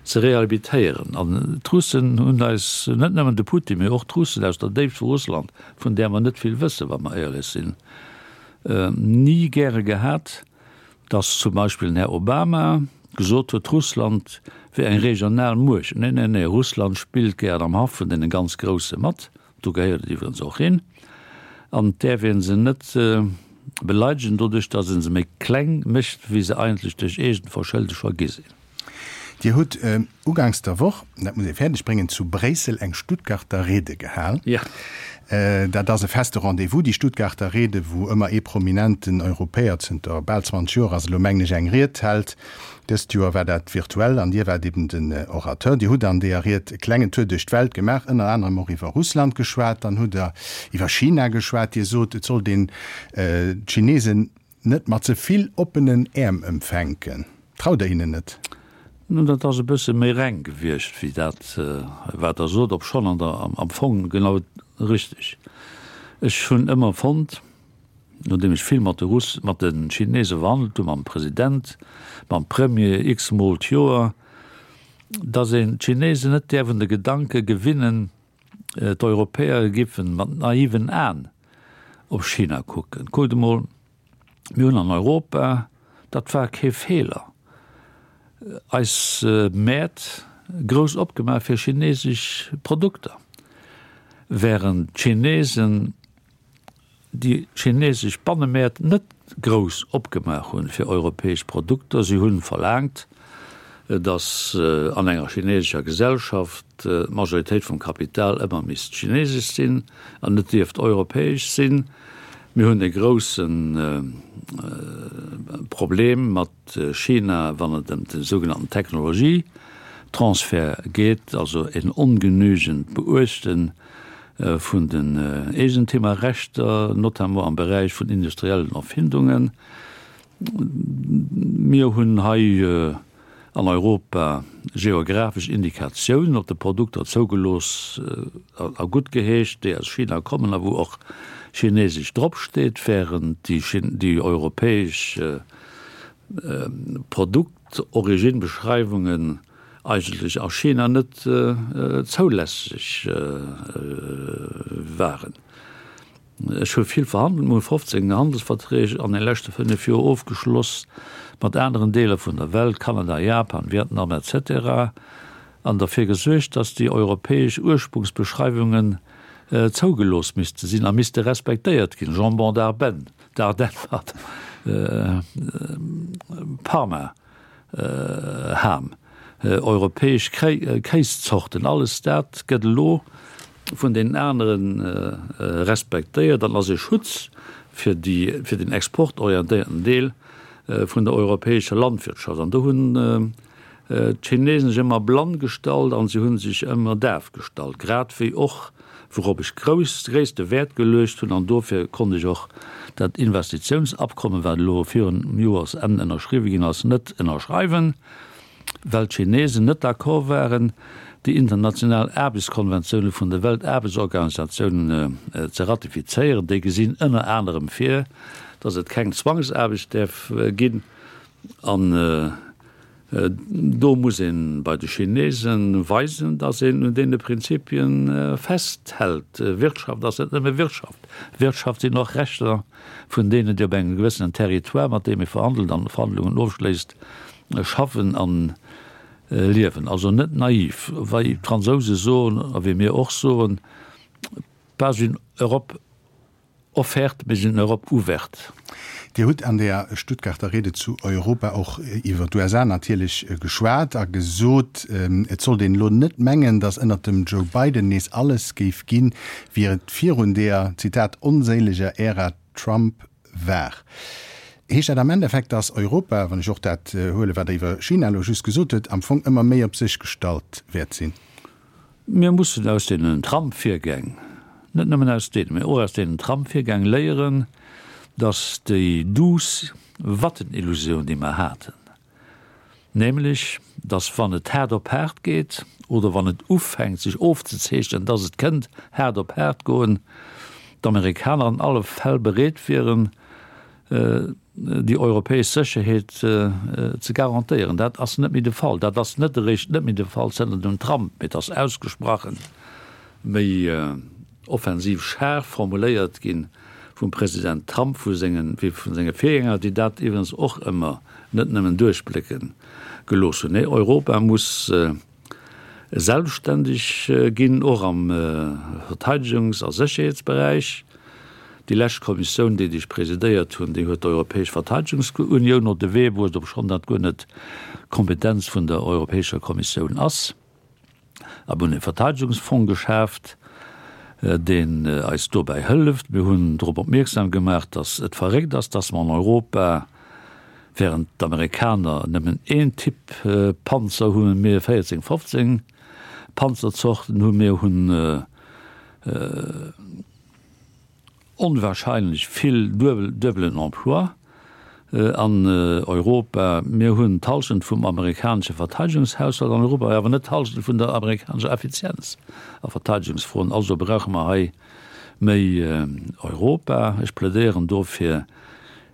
ze rehabilitéieren. An d'Russen hunn eis, net nëmmen de Putin, mee och d'Russen aus der Déift vu Russland, vun där mer net vill wëssen, wa mer éierlech sinn, ni gäre gehat, datt zum Beispill den Här Obama gesot huet, Russland wier eng regional Muecht. Nee, nee, nee, Russland spillt gären am Haff vun deene ganz Grousse mat. Do gehéiert et iwwerens och hin. An et däerf ee se net beleidegen doduerch, datt ee se méi kleng mécht, wéi se eigentlech duerch eegent Verschëlde scho gi sinn. Dir hutt uganks der Woch, dat muss ee fäerdeg bréngen, zu Bréissel eng Stuttgarter Rede gehal. Jo. Dat ass e feste Rendez-vous, déi Stuttgarter Rede, wou ëmmer ee prominenten Europäer, zënter bal 20 Joer ass elo, mengen ech, eng Ried hält. Dëst Joer war dat virtuell an Dir waart eben den Orateur. Dir hutt an deeër Ried e klengen Tour duerch d'Welt gemaach, ënner anerem och iwwer Russland geschwat, dann hutt Der iwwer China geschwat. Dir sot, et sollt een d'Chinesen net mat ze vill oppenen Äerm empfänken. Traut Der hinnen net? Nun, dat ass e bësse méi reng gewiescht wéi dat, wat Der sot, obschonn an der, am Fong genau richteg. Ech hunn ëmmer fonnt, nodeem ech vill mat de Russ, mat de Chinese verhandelt hunn, mam President, mam Premier x-mol d'Joer, datt een d'Chinesen net däerf un de Gedanke gewinnen, d'Europäer giffen mat naiven Aen op China kucken. Kuckt emol, mir hunn an Europa, dat war kee Feeler, eis Mäert grouss opgemaach fir chinesesch Produkter, während d'Chinesen déi chinesesch Bannemäert net grouss opgemaach hunn fir europäesch Produkter. Si hunn verlaangt, datt an enger chinesescher Gesellschaft d'Majoritéit vum Kapital ëmmer misst chinesesch sinn an net dierft europäesch sinn. Mir hunn e grousse Problem mat China, wann et ëm de sougenannten Technologietransfert geet, also en ongenügend Beuechte vun den Eegentemerrechter, notamment am Beräich vun industriellen Erfindungen. Mir hunn hei an Europa geographesch Indikatiounen op de Produkter zougelooss a guttgeheescht, déi aus China kommen a wou och Chinesesch dropsteet, während déi europäesch Produktorigine-Beschreiwungen eigentlech a China net zoulässeg waren. Ech hu vill verhandelt, mir hu 15 Handelsverträg an de leschte 5 Joer ofgeschloss mat aneren Deeler vun der Welt, Kanada, Japan, Vietnam etc. An derfir gesuergt, datt déi europäesch Ursprungsbeschreiwungen zougelooss misste sinn a misste respektéiert ginn, Jambon d'Arbennes, d'Ardennes, pardon, Parma Ham, europäesch Kéiszorten, alles dat gëtt elo vun deenen anere respektéiert an ass e Schutz fir déi, fir den exportorientéierten Deel vun der europäescher Landwirtschaft. An do hunn d'Chinesen sech ëmmer blann gestallt an se hu sech ëmmer daf gestallt, grad wéi och, wourop ech grouss, gréisste Wäert geluecht hunn, an dofir konnt ech och dat Investitiounsabkommen, wat elo virun Joersenn ënnerschriwwe ginn ass, net ënnerschreiwen. Well d'Chinesen net d'accord waren, déi international Aarbechtskonventioune vun der Weltaarbechtsorganisatioun ze ratifizéieren. Déi gesinn ënner anerem vir, datt et keng Zwangsaarbecht däerf ginn. An do muss ee bei de Chinese weisen, datt een un deene Prinzipie festhält. Wirtschaft ass net nëmme Wirtschaft. Wirtschaft sinn och Rechter vun deenen, déi op engem gewëssenen Territoire, mat deem ee verhandelt an Verhandlungen ofschléisst, schaffen an liewen. Also net naiv, wei d'Fransouse soen a wéi mir och soen, pas une Europe offerte, mais une Europe ouverte. Dir hutt an der Stuttgarter Rede zu Europa och iwwer d'USA natierlech geschwat a gesot, et sollt een elo net mengen, datt ënnert dem Joe Biden nees alles géif ginn, wéi et virun deeër, Zitat, onséileger Ära Trump war. Heescht dat am Endeffekt, datt Europa, wann ech och dat huelen, wat Der iwwer China elo just gesot hutt, am Fong ëmmer méi op sech gestallt wäert sinn? Mir mussen aus deenen Trump-Virgäng, net nëmmen aus deenen, mä och aus deenen Trump-Virgäng léieren, datt déi duuss Wattenillusioun, déi mer haten, nämlech datt wann et haart op haart geet oder wann et ufänkt sech ofzezeechnen, datt et kënnt haart op haart goen, d'Amerikaner an alle Fäll bereet wieren, déi europäesch Sécherheet ze garantéieren. Dat ass net méi de Fall. Dat ass net eréischt net méi de Fall zënter dem Trump, mee et ass ausgesprachen méi offensiv schaarf formuléiert gi vum President Trump, vu sengen, wéi vu senge Virgänger, déi dat iwwregens och ëmmer net nëmmen duerchblécke gelooss hunn. Nee, Europa muss selbstständeg ginn, och am Verteidegungs a Sécherheetsberäich. Déi lescht Kommissioun, déi ech presidéiert hunn, déi huet d'Europäesch Verteidegungsunioun op de Wee bruecht, obschonn dat guer net d'Kompetenz vun der Europäescher Kommissioun ass. A mir hunn e Verteidegungsfong geschaaft, deen eis dobäi hëlleft. Mir hunn drop opmierksam gemaach, datt et verréckt ass, datt mer an Europa, während d'Amerikaner nëmmen een Typ Panzer hunn, mir 14, 15 Panzerzorten hunn. Mir hunn onwahrscheinlech vill duebelen Emploi an Europa. Mir hunn d'Hallschent vum amerikanesche Verteidegungshaushalt an Europa, awer net d'Hallschent vun der amerikanescher Effizienz a Verteidegungsfroen. Also brauche mer hei méi Europa. Ech plädéieren dofir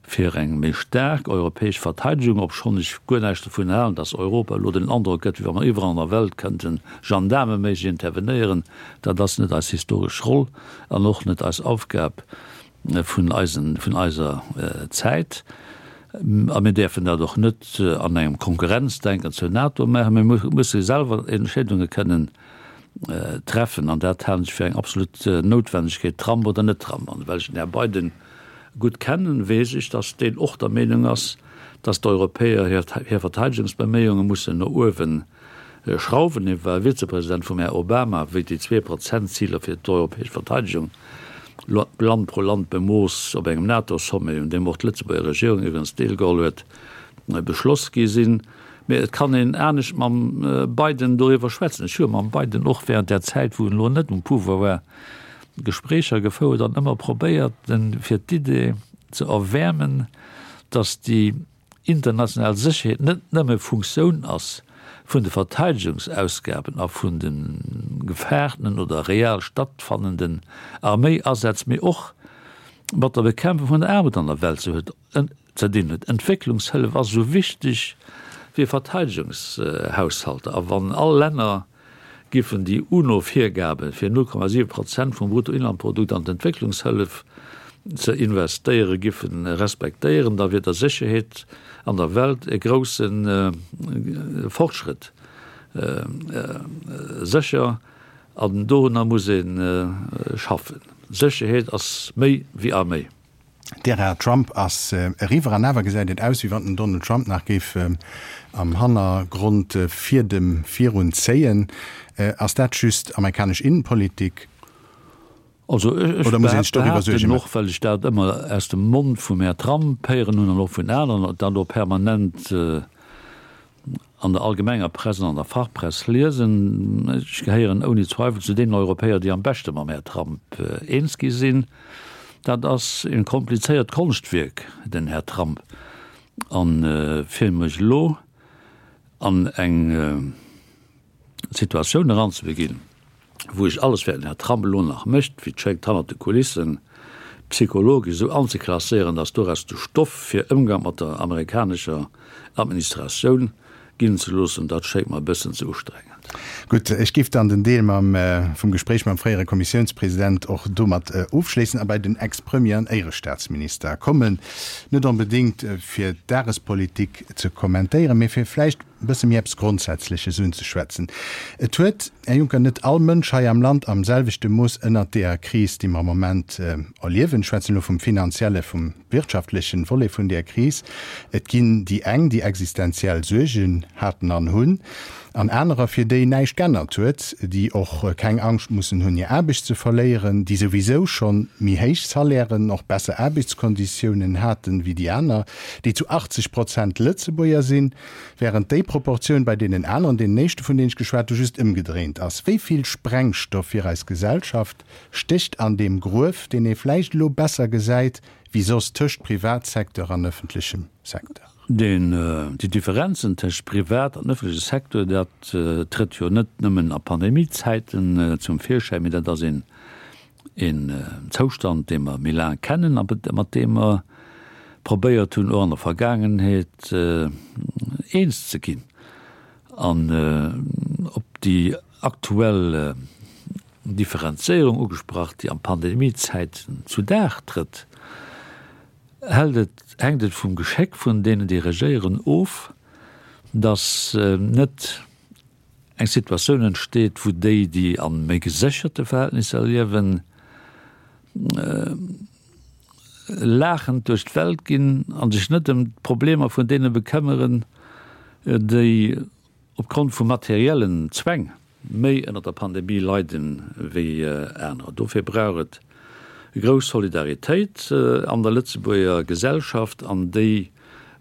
fir eng méi staark europäesch Verteidegung, obschonn ech guer näischt dovun halen, datt Europa elo den Androck gëtt, wéi wa mer iwwerall an der Welt kënnten gendaarmeméisseg intervenéieren. Dat ass net eis historesch Roll an och net eis Aufgab vun eisen, vun eiser Zäit. A mir däerfen dat och net an engem Konkurrenzdenken zur NATO maachen. Mir musse selwer Entscheedunge kënnen treffen an dat halen ech fir eng absolut Noutwendegkeet, Trump oder net Trump. An well ech den Här Biden gutt kennen, weess ech, datt deen och der Meenung ass, datt d'Europäer hir Verteidegungsbeméiunge mussen no uewe schrauwen. Hie war Vizepresident vum Här Obama, wéi déi Zwee-Prozent-Ziler fir d'europäesch Verteidegung Land pro Land bemooss op engem NATO-Sommet, un deem och d'Lëtzebuerger Regierung iwwregens deelgeholl huet, beschloss gi sinn. Mee et kann een anescht mam Biden doriwwer schwätzen. Ech hu mam Biden och während där Zäit, wou en elo net um Pouvoir war, Gespréicher gefouert an ëmmer probéiert, en fir d'Idee ze erwäermen, datt déi international Sécherheet net nëmme Funktioun ass vun de Verteidegungsausgaben a vun de gefaartenen oder real stattfannenden Arméiasätz, mee och mat der Bekämpfung vun der Aarmut an der Welt ze dinn huet. Entwécklungshëllef ass esou wichteg wéi Verteidegungshaushalter. A wann all Länner giffen déi UNO-Virgabe fir 0,7 Prozent vum Bruttoinlandprodukt an d'Entwécklungshëllef ze investéiere giffe respektéieren, da wier der Sécherheet an der Welt e grousse Fortschrëtt sécher. An dorunner muss ee schaffen. Sécherheet ass méi wéi Arméi. D'Ära Trump ass eriwwer an awer gesäit et aus, wéi wann den Donald Trump nach géif am Hannergrond Fiedem virun zéien. Ass dat just amerikanesch Innenpolitik Also ech oder muss een sech doriwwer Suerge behaapten, och maachen? well ech dat ëmmer aus dem Mond vum Här Trump héieren hunn an och vun aneren, dat och permanent an der allgemenger Press an an der Fachpress liesen, ech gehéieren ouni Zweifel zu deenen Europäer, déi am beschte mam Här Trump eens gi sinn, dat ass e komplizéiert Konschtwierk, den Här Trump. A fir mech elo. An eng Situatioun eranzebeginn, wou ech alles, wat den Här Trump elo nach mécht, wéi et schéngt hannert de Kulissen, psychologesch esou anzeklasséieren, datt doraus de Stoff fir Ëmgang mat der amerikanescher Administratioun ginn ze loossen, dat schéngt mer e bëssen ze ustrengend. Gutt, ech géif dann den Deel mam vum Gespréich mam fréiere Kommissiounspresident och domat ofschléissen a bei den Ex-Premier an Éierestaatsminister kommen. Net onbedéngt fir d'Dagespolitik ze kommentéieren, mee fir vläicht e bësse méi eppes Grondsätzleches unzeschwätzen. Et huet, Här Juncker, net all Mënsch hei am Land am selwechte Mooss ënnert deeër Kris, déi mer am Moment erliewen, ech schwätzen elo vum finanzielle, vum wirtschaftlechen Volet vun deeër Kris. Et ginn déi eng, déi existenziell Suergen haten an hunn, an anerer, fir déi näischt g'ännert huet, déi och keng Angscht mussen hunn, hir Aarbecht ze verléieren, déi souwisou schonn méi héich Salairen, och besser Aarbechtskonditiounen haten wéi déi aner, déi zu 80 Prozent Lëtzebuerger sinn, während déi Proportioun bei deenen aneren, deenen éischte vun deenen ech geschwat hu, just ëmgedréint ass. Wéi vill Sprengstoff fir eis Gesellschaft stécht an deem Gruef, deen ee vläicht elo besser gesäit wéi soss tëscht Privatsecteur an ëffentlechem Secteur? Deen, déi Differenzen tëscht Privat an ëffentleche Secteur, dat trëtt jo net nëmmen a Pandemiezäiten zum Virschäin, mee dat ass een, een Zoustand, dee mer méi laang kennen a mat deem mer probéiert hunn, och an der Vergaangenheet eens ze ginn. An op déi aktuell Differenzéierung ugesprach, déi an Pandemiezäiten zu Dag trëtt, hält et, hänkt et vum Geschéck vun deenen, déi regéieren, of, datt net eng Situatioun entsteet, wou déi, déi a méi gesécherte Verhältnisser liewen, laachend duerch d'Welt ginn a sech net ëm d'Problemer vun deene bekëmmeren, déi opgrond vu materiellen Zwäng méi ënner der Pandemie leiden wéi anerer. Dofir brauch et grouss Solidaritéit an der Lëtzebuerger Gesellschaft an déi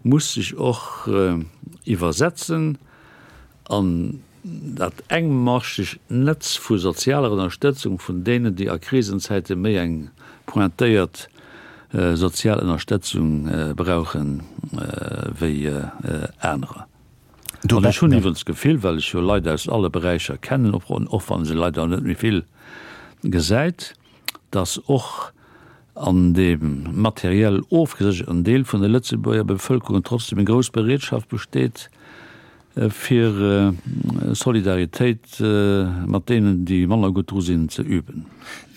muss sech och iwwersetzen an dat engmaschegt Netz vu sozialer Ënnerstëtzung vun deenen, déi a Krisenzäite méi eng pointéiert sozial Ënnerstëtzung brauchen wéi anerer. An ech hunn iwwerens d'Gefill, well ech jo Leit aus alle Beräicher kennen, och wann ee se leider net méi vill gesäit, datt och an deem materiell ofgesécherten Deel vun der Lëtzebuerger Bevëlkerung trotzdem eng grouss Bereetschaft besteet, fir Solidaritéit mat deenen, déi manner gutt dru sinn, ze üben.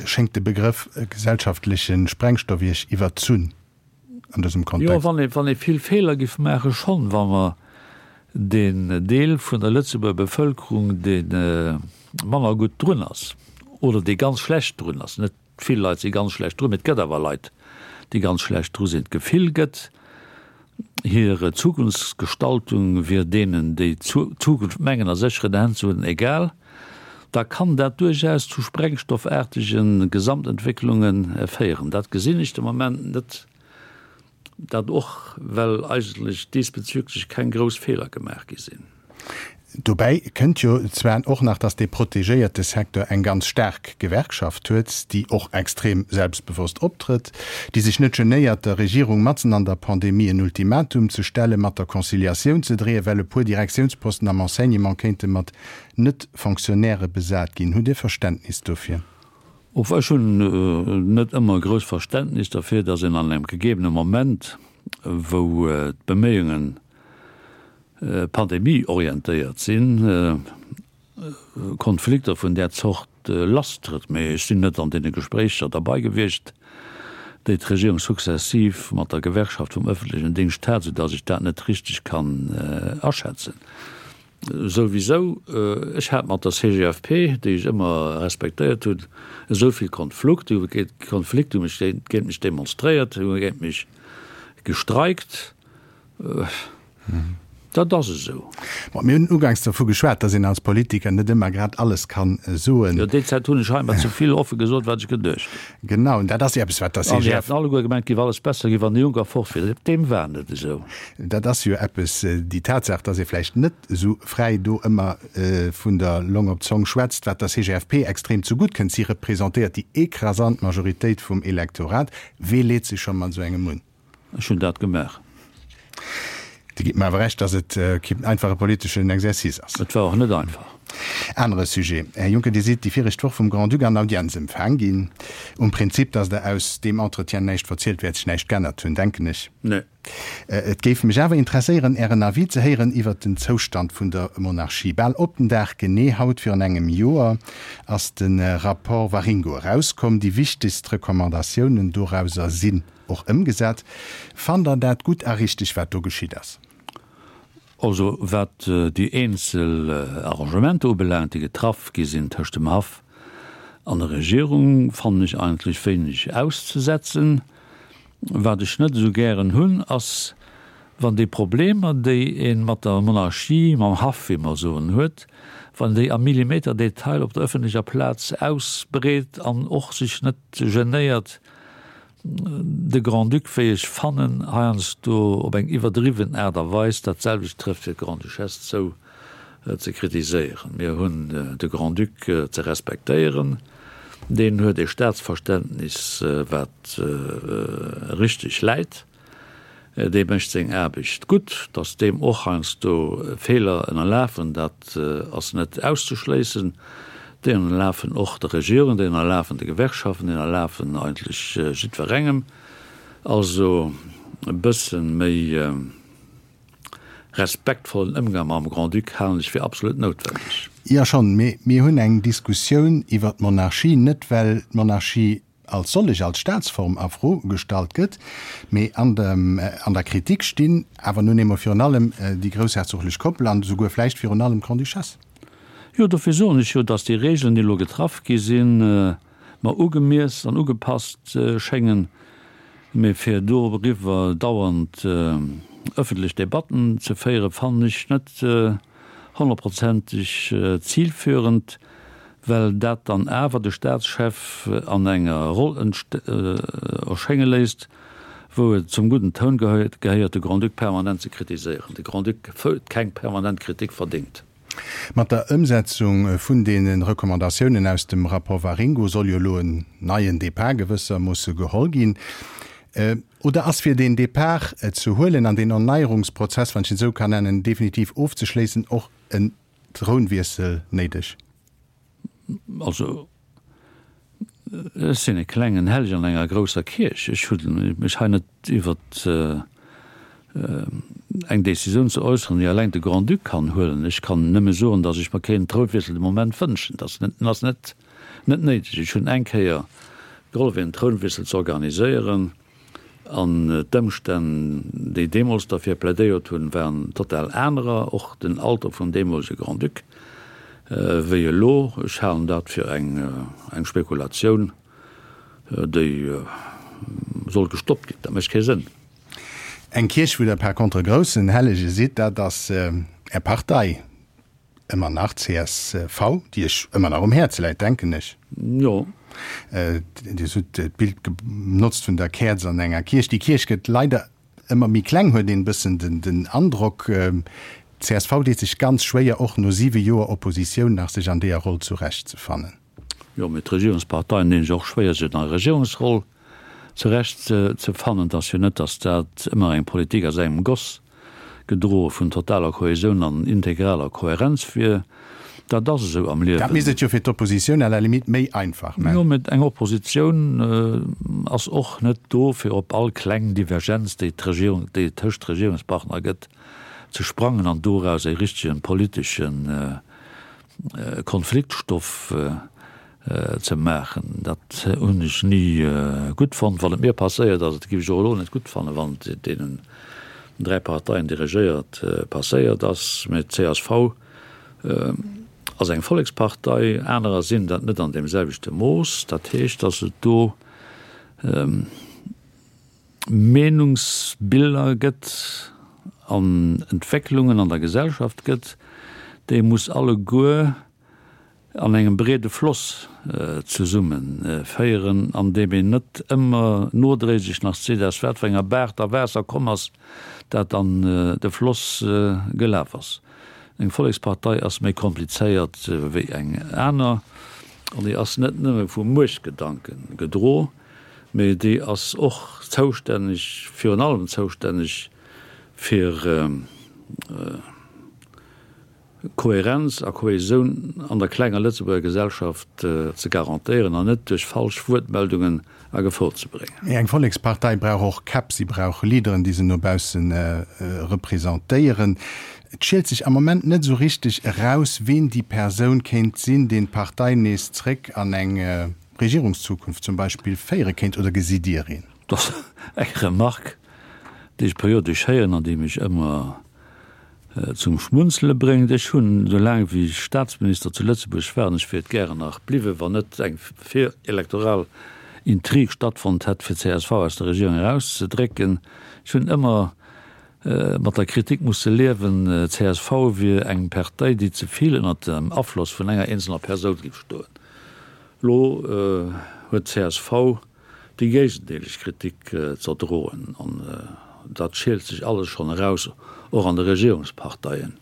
Schéngt de Begrëff gesellschaftleche Sprengstoff Iech iwwerzunn? an dësem Kontext? Jo, wann ee, wann ee vill Feeler giff maachen, schonn. Wa mer deen Deel vun der Lëtzebuerger Bevëlkerung, dee manner gutt drun ass oder dee ganz schlecht drun ass, net vill Leit si ganz schlecht drun, mee et gëtt awer Leit, déi ganz schlecht dru sinn, d'Gefill gëtt, hir Zukunftsgestaltung wier deenen, déi d'Zukunft mengen a sécheren Hänn ze hunn, egal, da kann dat duerchaus zu sprengstoffaartege Gesamtentwécklunge féieren. Dat gesinn ech de Moment net, dat och well eigentlech diesbezüglech keng grouss Feeler gemaach gi sinn. Dobäi kënnt jo zwar och nach, datt dee protegéierte Secteur eng ganz staark Gewerkschaft huet, déi och extrem selbstbewosst optrëtt, déi sech net genéiert, der Regierung matzen an der Pandemie en Ultimatum ze stellen, mat der Conciliatioun ze dreeën, well e puer Direktiounsposten am Enseignement kéinte mat Net-Fonctionnairë besat ginn. Hutt Dir Verständnis dofir? Och ech hunn net ëmmer e grousst Verständnis derfir, datt een an engem gegebene Moment, wou d'Beméiungen Pandemie-orientéiert sinn, Konflikter vun där Zort lasstrëtt. Mee ech sinn net an deene Gespréicher derbei gewiescht, déi d'Regierung sukzessiv mat der Gewerkschaft vum ëffentlechen Dingscht hat, soudatt ech dat net richteg kann aschätzen. Souwisou, ech hat mat der CGFP, déi ech ëmmer respektéiert hunn, esou vill Konflukt, déi hu Konflikt, hu mech géint mech demonstréiert, hu géint mech gestreikt. Dat ass esou. Bon, mir hunn uganks dervu geschwat, dass een als Politiker net ëmmer grad alles kann soen. Jo, déi Zäit hunn ech hei emmer ze vill offe gesot, wat ech geduecht hunn. Genau, an dat ass jo eppes, wat der An déi hätten alleguer gemengt, et géif alles besser ginn, wann de Juncker fort wier. Deem war net esou. Dat ass jo eppes, déi Tatsaach, dass ee vläicht net esou fräi do ëmmer vun der Long op d'Zong schwätzt, wat der CGFP extrem zegutt kënnt. Si representéiert déi écrasant Majoritéit vum Elektorat. Wee leet sech scho mat esou engem un? Ech hunn dat gemaach. Dir gitt mer awer Recht, datt et keen einfache politeschen Exercice ass. Et war och net einfach. Anere Sujet, Här Juncker, Dir sidd déi viregt Woch vum Grand-Duc an Audienz empfaang ginn. Um Prinzip, datt Der aus deem Entretien näischt verzielt, wäert sech näischt g'ännert hunn, denken ech. Nee. Et géif mech awer interesséieren, Ären Avis ze héieren iwwert den Zoustand vun der Monarchie. Bal op den Dag genee haut virun engem Joer ass de Rapport Waringo erauskomm. Déi wichtegst Recommandatiounen dorauser sinn och ëmgesat. Fannt Der dat gutt a richteg, wat do geschitt ass? Also wat déi eenzel Arrangementer ubelaangt, déi getraff gi sinn tëscht dem Haff an der Regierung, fannen ech eigentlech wéineg auszesetzen. Wat ech net esou gären hunn, ass, wann déi Problemer, déi ee mat der Monarchie, mam Haff, wéi mer soen, huet, wann een déi am Millimeterdetail op der ëffentlecher Plaz ausbreet an och sech net genéiert, de Grand-Duc, wéi ech fannen, heiansdo op eng iwwerdriwwen Aart a Weis, dat selwecht trëfft fir d'Grande-Duchesse zou, ze kritiséieren. Mir hunn de Grand-Duc ze respektéieren. Deen huet e Staatsverständnis, wat richteg läit. Dee mécht seng Aarbecht gutt. Datt deem och heiansdo Feeler ënnerlafen, dat ass net auszeschléissen. Déi ënnerlafen och der Regierung, déi ënnerlafen de Gewerkschaften, déi ënnerlafen eigentlech jiddwerengem. Also e bësse méi respektvollen Ëmgang mam Grand-Duc halen ech fir absolut noutwendeg. Jo schonn, mee mir hunn eng Diskussioun iwwer d'Monarchie, net well d'Monarchie als sollech, als Staatsform a Fro gestallt gëtt, mee an der Kritik stinn awer nun eemol virun allem déi groussherzoglech Koppel an esouguer vläicht virun allem d'Grande-Duchesse. Jo, dofir soen ech jo, dass déi Regeln, déi elo getraff gi sinn, mer ugemiess an ugepasst schéngen. Mee fir doriwwer dauernd ëffentlech Debatten ze féieren, fannen ech net honnertprozenteg zilführend, well dat dann awer de Staatschef an enger Roll erschénge léisst, wou et zum gudden Toun gehéiert, de Grand-Duc permanent ze kritiséieren. De Grand-Duc huet keng permanent Kritik verdéngt. Mat der Ëmsetzung vun deene Recommandatiounen aus dem Rapport Waringo soll jo elo en neien Depart gewëssermoosse geholl ginn. Oder ass fir deen Depart ze huelen an deen Erneierungsprozess, wann ech en esou kann nennen, definitiv ofzeschléissen, och en Trounwiessel néideg? Also, ech sinn e klengen Hellegen an enger grousser Kierch. Ech hu mech hei net iwwer eng Décisioun ze äusseren, déi alleng de Grand-Duc kann huelen. Ech kann nëmme soen, datt ech mer keen Trounwiessel de Moment wënschen. Dat ass net néideg. Ech hunn eng Kéier gehollef, een Trounwiessel ze organiséieren. An d'Ëmstänn, déi deemools derfir plädéiert hunn, waren total anerer, och den Alter vum deemolege Grand-Duc, wéi elo. Ech halen dat fir eng Spekulatioun, déi soll gestoppt ginn. Dat mécht kee Sënn. Eng Kierch, wou Der par contre e groussen Hellege sidd, dat ass Är Partei. Ëmmer nach csv, déi Iech ëmmer nach um Häerz läit, denken ech. Jo. Dir hutt d'Bild genotzt vun der Käerz an enger Kierch. Déi Kierch gëtt leider ëmmer méi kleng, huet een e bëssen den Androck. Csv deet sech ganz schwéier, och no siwe Joer Oppositioun nach sech an deeër Roll zurechtzefannen. Jo, mee d'Regierungsparteien dinn sech och schwéier, sech an der Regierungsroll zurecht ze fannen. Et ass jo net, datt dat ëmmer eng Politik aus engem Goss, gedroe vun totaler Kohäsioun an integraler Kohärenz wier. Dat ass esou am Liewen. Dat misst et jo fir d'Oppositioun à la limite méi einfach man. Jo, mee eng Oppositioun ass och net do, fir op all kleng Divergenz, déi d'Regierung, déi et tëscht Regierungspartner gëtt, ze sprangen an doraus e richtegen politeschen Konfliktstoff ze maachen. Dat hunn ech ni gutt fonnt, wann et mir passéiert ass. Et géif ech och elo net gutt fannen, wann et deenen 3 Parteien, déi regéiert, passéiert ass. Mä d'CSV ass eng Vollekspartei, anerer sinn dat net an deem selwechte Mooss. Dat heescht, datt et do Meenungsbiller gëtt an Entwécklungen an der Gesellschaft gëtt, déi muss alleguer an engem breede Floss zesumme féieren, an deem een net ëmmer nodréiglech nach seet, aus wat fir enger Baach da Waasser komm ass, dat an de Floss gelaf ass. Eng Vollekspartei ass méi komplizéiert wéi eng aner an déi ass net nëmme vu Muechtgedanke gedro, mee déi ass och zoustänneg, virun allem zoustänneg. Fir Kohärenz a Kohäsioun an der klenger Lëtzebuerger Gesellschaft ze garantéieren an net duerch falsch Wuertmeldungen a Gefor ze bréngen. Mee eng Vollekspartei brauch och Käpp, si brauch Leaderen, déi se no bausse representéieren. Et schielt sech am Moment net esou richteg eraus, ween déi Persoun kéint sinn, deen d'Partei nees zréck an eng Regierungszukunft zum Beispill féiere kéint. Oder gesitt Dir een? Dat ass eng Remarque, déi ech periodesch héieren an déi mech ëmmer zum Schmunzele bréngt. Ech hunn, esou laang wéi ech Staatsminister zu Lëtzebuerg war, an ech wier et gären nach bliwwen, wann net eng virelektoral Intrig stattfonnt hätt, fir csv aus der Regierung erauszedrécken, ech hunn ëmmer mat der Kritik musse liewen, csv wier eng Partei, déi ze vill ënnert dem Afloss vun enger eenzelner Persoun géif stoen. Elo huet csv déi géigendeeleg Kritik z'erdroen, an dat schielt sech alles schonn eraus, och an de Regierungsparteien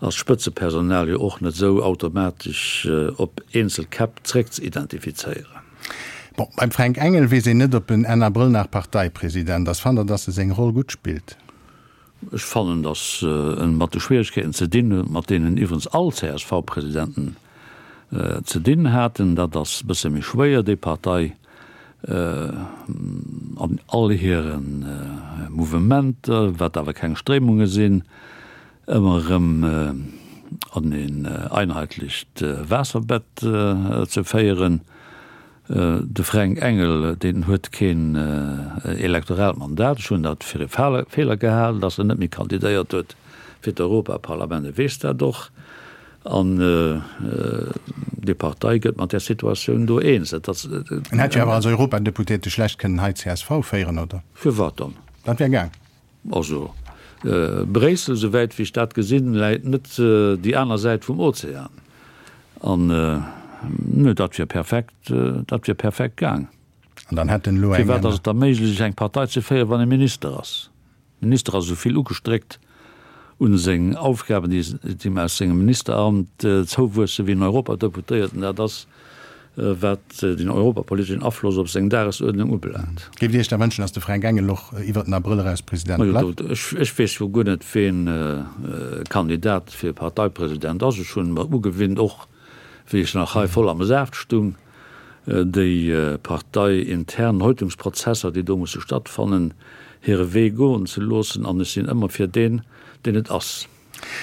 ass d'Spëtzepersonal jo och net esou automatesch op eenzel Käpp zréckzeidentifizéieren. Bon, beim Fränk Engel weess een net, ob en Enn Abrëll nach Parteipresident ass. Fannt Der, datt e seng Roll gutt spillt? Ech fannen, datt en mat de Schwieregkeeten ze dinn huet, mat deenen iwwerens all CSV-Presidenten ze dinn haten. Dat ass e bësse méi schwéier, déi Partei an all hire Mouvementer, wat awer keng Stréimunge sinn, ëmmer erëm an een einheitlecht Waasserbett ze féieren. De Fränk Engel, deen huet keen elektoraalt Mandat. Ech hunn dat fir e Feeler gehalen, datt en net méi kandidéiert huet fir d'Europaparlament. E weess dat och. An déi Partei gëtt mat där Situatioun do eens. Et ass. En hätt jo awer als Europadeputéierte schlecht kënnen hei csv féieren, oder? Firwat dann? Dat wär gaang. Also, Bréissel, souwäit wéi ech dat gesinn, läit net déi aner Säit vum Ozean. An, nö, dat wier perfekt, dat wier perfekt gaang. An dann hätt en elo eng. Firwat ass et da méiglech, eng Partei ze féieren, wann ee Minister ass? Minister ass esou vill ugestréckt un seng Aufgaben, déi him aus sengem Ministeramt zouwuessen, wéi en Europadeputéierten dat ass. wat den europapoliteschen Afloss op seng Dagesuerdnung ubelaangt. Géift Dir Iech da wënschen, datt de Fränk Engel och iwwert den Abrëll eraus President bleift? Ech weess jo guer net, ween Kandidat fir Parteipresident ass. Ech hunn mer ugewinnt, och wéi ech nach hei voll am Saaft stung, déi parteiintern Häutungsprozesser, déi do musse stattfannen, hire Wee goen ze loossen. An ech sinn ëmmer fir deen, deen et ass.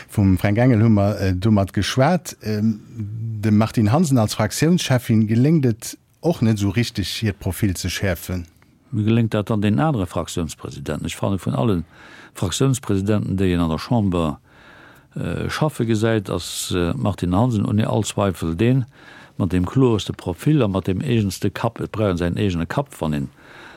Vum Fränk Engel hu mer domat geschwat. Dem Martine Hansen als Fraktiounscheffin geléngt et och net esou richteg, hiert Profil ze schäerfen. Wéi geléngt dat dann deenen anere Fraktiounspresidenten? Ech fanne vun alle Fraktiounspresidenten, déi een an der Chamber schaffe gesäit, ass d'Martine Hansen ouni all Zweifel deen mat deem kloerste Profil a mat deem eegenste Kapp. Et brauch een säin eegene Kapp, wann een